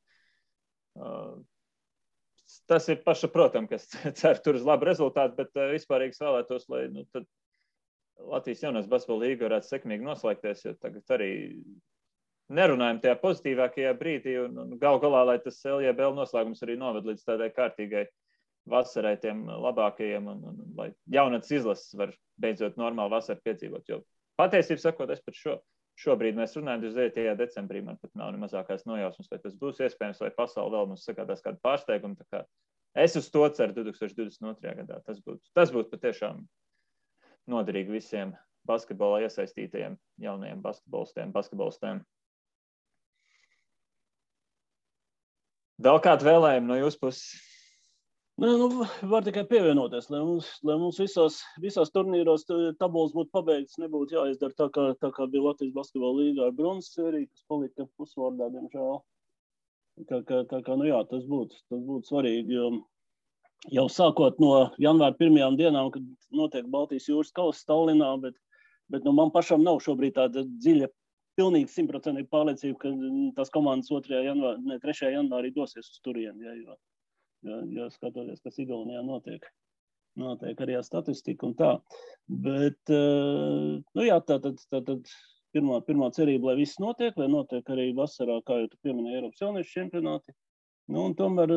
tas ir pašsaprotam, kas cer tur uz labu rezultātu, bet vispārīgi vēlētos, lai tad Latvijas jaunās basketbola līga varētu sekmīgi noslēgties, jo tagad arī nerunājam tajā pozitīvākajā brīdī un gal galā, lai tas LJBL noslēgums arī noved līdz tādai kārtīgai vasarai tiem labākajiem un lai jaunatnes izlases var beidzot normāli vasaru piedzīvot. Jo patiesībā sakot, es pat šobrīd mēs runājam 29. decembrī, man pat nav ne mazākās nojausmas, vai tas būs iespējams, vai pasauli vēl mums sagādās kādu pārsteigumu. Tā kā es uz to ceru 2022. gadā. Tas būtu patiešām noderīgi visiem basketbolā iesaistītajiem jaunajiem basketbolistiem. Vēl kādu vēlējumu no jūsu puses? Var tikai pievienoties, lai mums visās turnīros tabulas būtu pabeigts, nebūtu jāizdara tā kā bija Latvijas basketbola līgā ar bronzas sēriju, kas palika pusvārdā, diemžēl. Tā kā tas būtu svarīgi, jo jau sākot no janvāra 1. dienām, kad notiek Baltijas jūras kausa Tallinā, bet man pašam nav šobrīd tāda dziļa, pilnīgi 100% pārliecība, ka tās komandas 3. janvārī dosies uz turieni, ja skatoties, kas Igaunijā notiek arī ar statistiku un tā. Bet, tātad pirmā cerība, lai viss notiek, lai notiek arī vasarā, kā jau tu pieminēji, Eiropas jauniešu čempionāti. Un tomēr,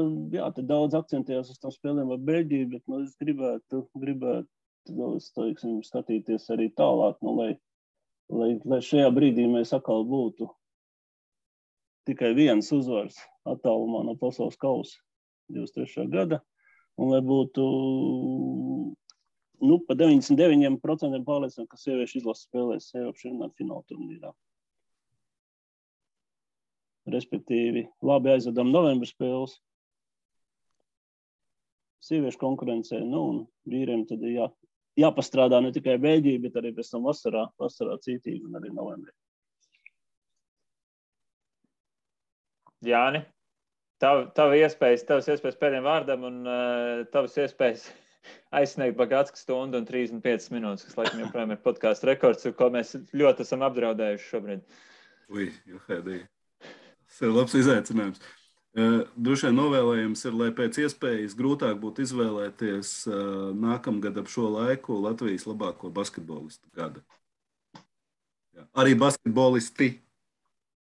te daudz akcentējās uz tām spēlēm ar Beļģiju, bet es gribētu skatīties arī tālāk, lai šajā brīdī mēs atkal būtu tikai viens uzvars attālumā no pasaules kausa 23. gada, un lai būtu pa 99% pārliecināti, ka sieviešu izlases spēlēs Eiropas čempionāta fināla turnīrā. Respektīvi, labi aizvedam novembra spēles, sieviešu konkurencē, un vīriem tad jāpastrādā ne tikai Beļģija, bet arī pēc tam vasarā cītīgi un arī novembrī. Jāni, tavas iespējas pēdējiem vārdam un tavas iespējas aizsniegt Bagātskas stundu un 35 minūtes, kas laikam joprojām ir podcastu rekords, ko mēs ļoti esam apdraudējuši šobrīd. Tas ir labs izaicinājums. Droši vien novēlējums ir, lai pēc iespējas grūtāk būtu izvēlēties nākamgad ap šo laiku Latvijas labāko basketbolistu gada. Arī basketbolisti.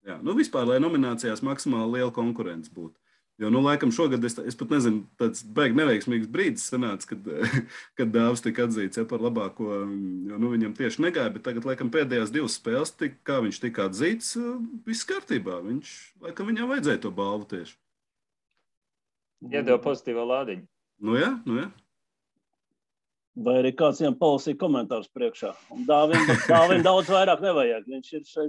Vispār, lai nominācijās maksimāli liela konkurence būtu. Jo, laikam šogad es pat nezinu, tāds baigi neveiksmīgs brīdis sanāca, kad Dāvs tika atzīts par labāko, jo viņam tieši negāja, bet tagad, laikam, pēdējās 2 spēles, kā viņš tika atzīts, viss kārtībā. Laikam viņam vajadzēja to balvu tieši. Iedeva pozitīvo lādiņu. Nu jā. Vai arī kāds viņam palasīja komentārus priekšā. Un Dāvim daudz vairāk nevajag. Viņš ir šai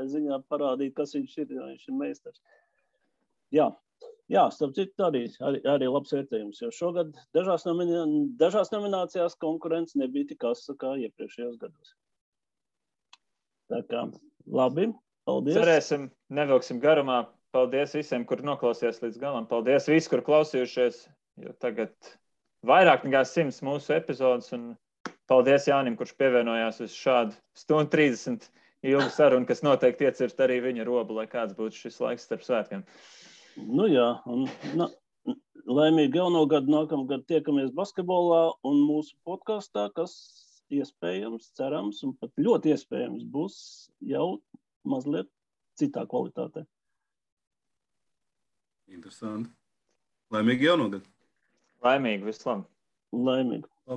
ziņā parādīt, kas viņš ir, jo viņš ir meistars. Jā, starp citu arī labs vērtējums, jo šogad dažās nominācijās konkurence nebija tik asa kā iepriekšējos gados. Tā kā, labi, paldies. Cerēsim, nevilksim garumā. Paldies visiem, kur noklausījās līdz galam. Paldies visi, kur klausījušies, jo tagad vairāk nekā 100 mūsu epizodes. Un paldies Jānim, kurš pievienojās uz šādu 1:30 ilgu sarunu, kas noteikti iecirst arī viņa robu, lai kāds būtu šis laiks starp svētkiem. Nu jā, un laimīgi jauno gadu, nākamgad tiekamies basketbolā un mūsu podkastā, kas iespējams, cerams un pat ļoti iespējams būs jau mazliet citā kvalitātē. Interesanti. Laimīgi jauno gadu. Laimīgi, vislabāk. Laimīgi.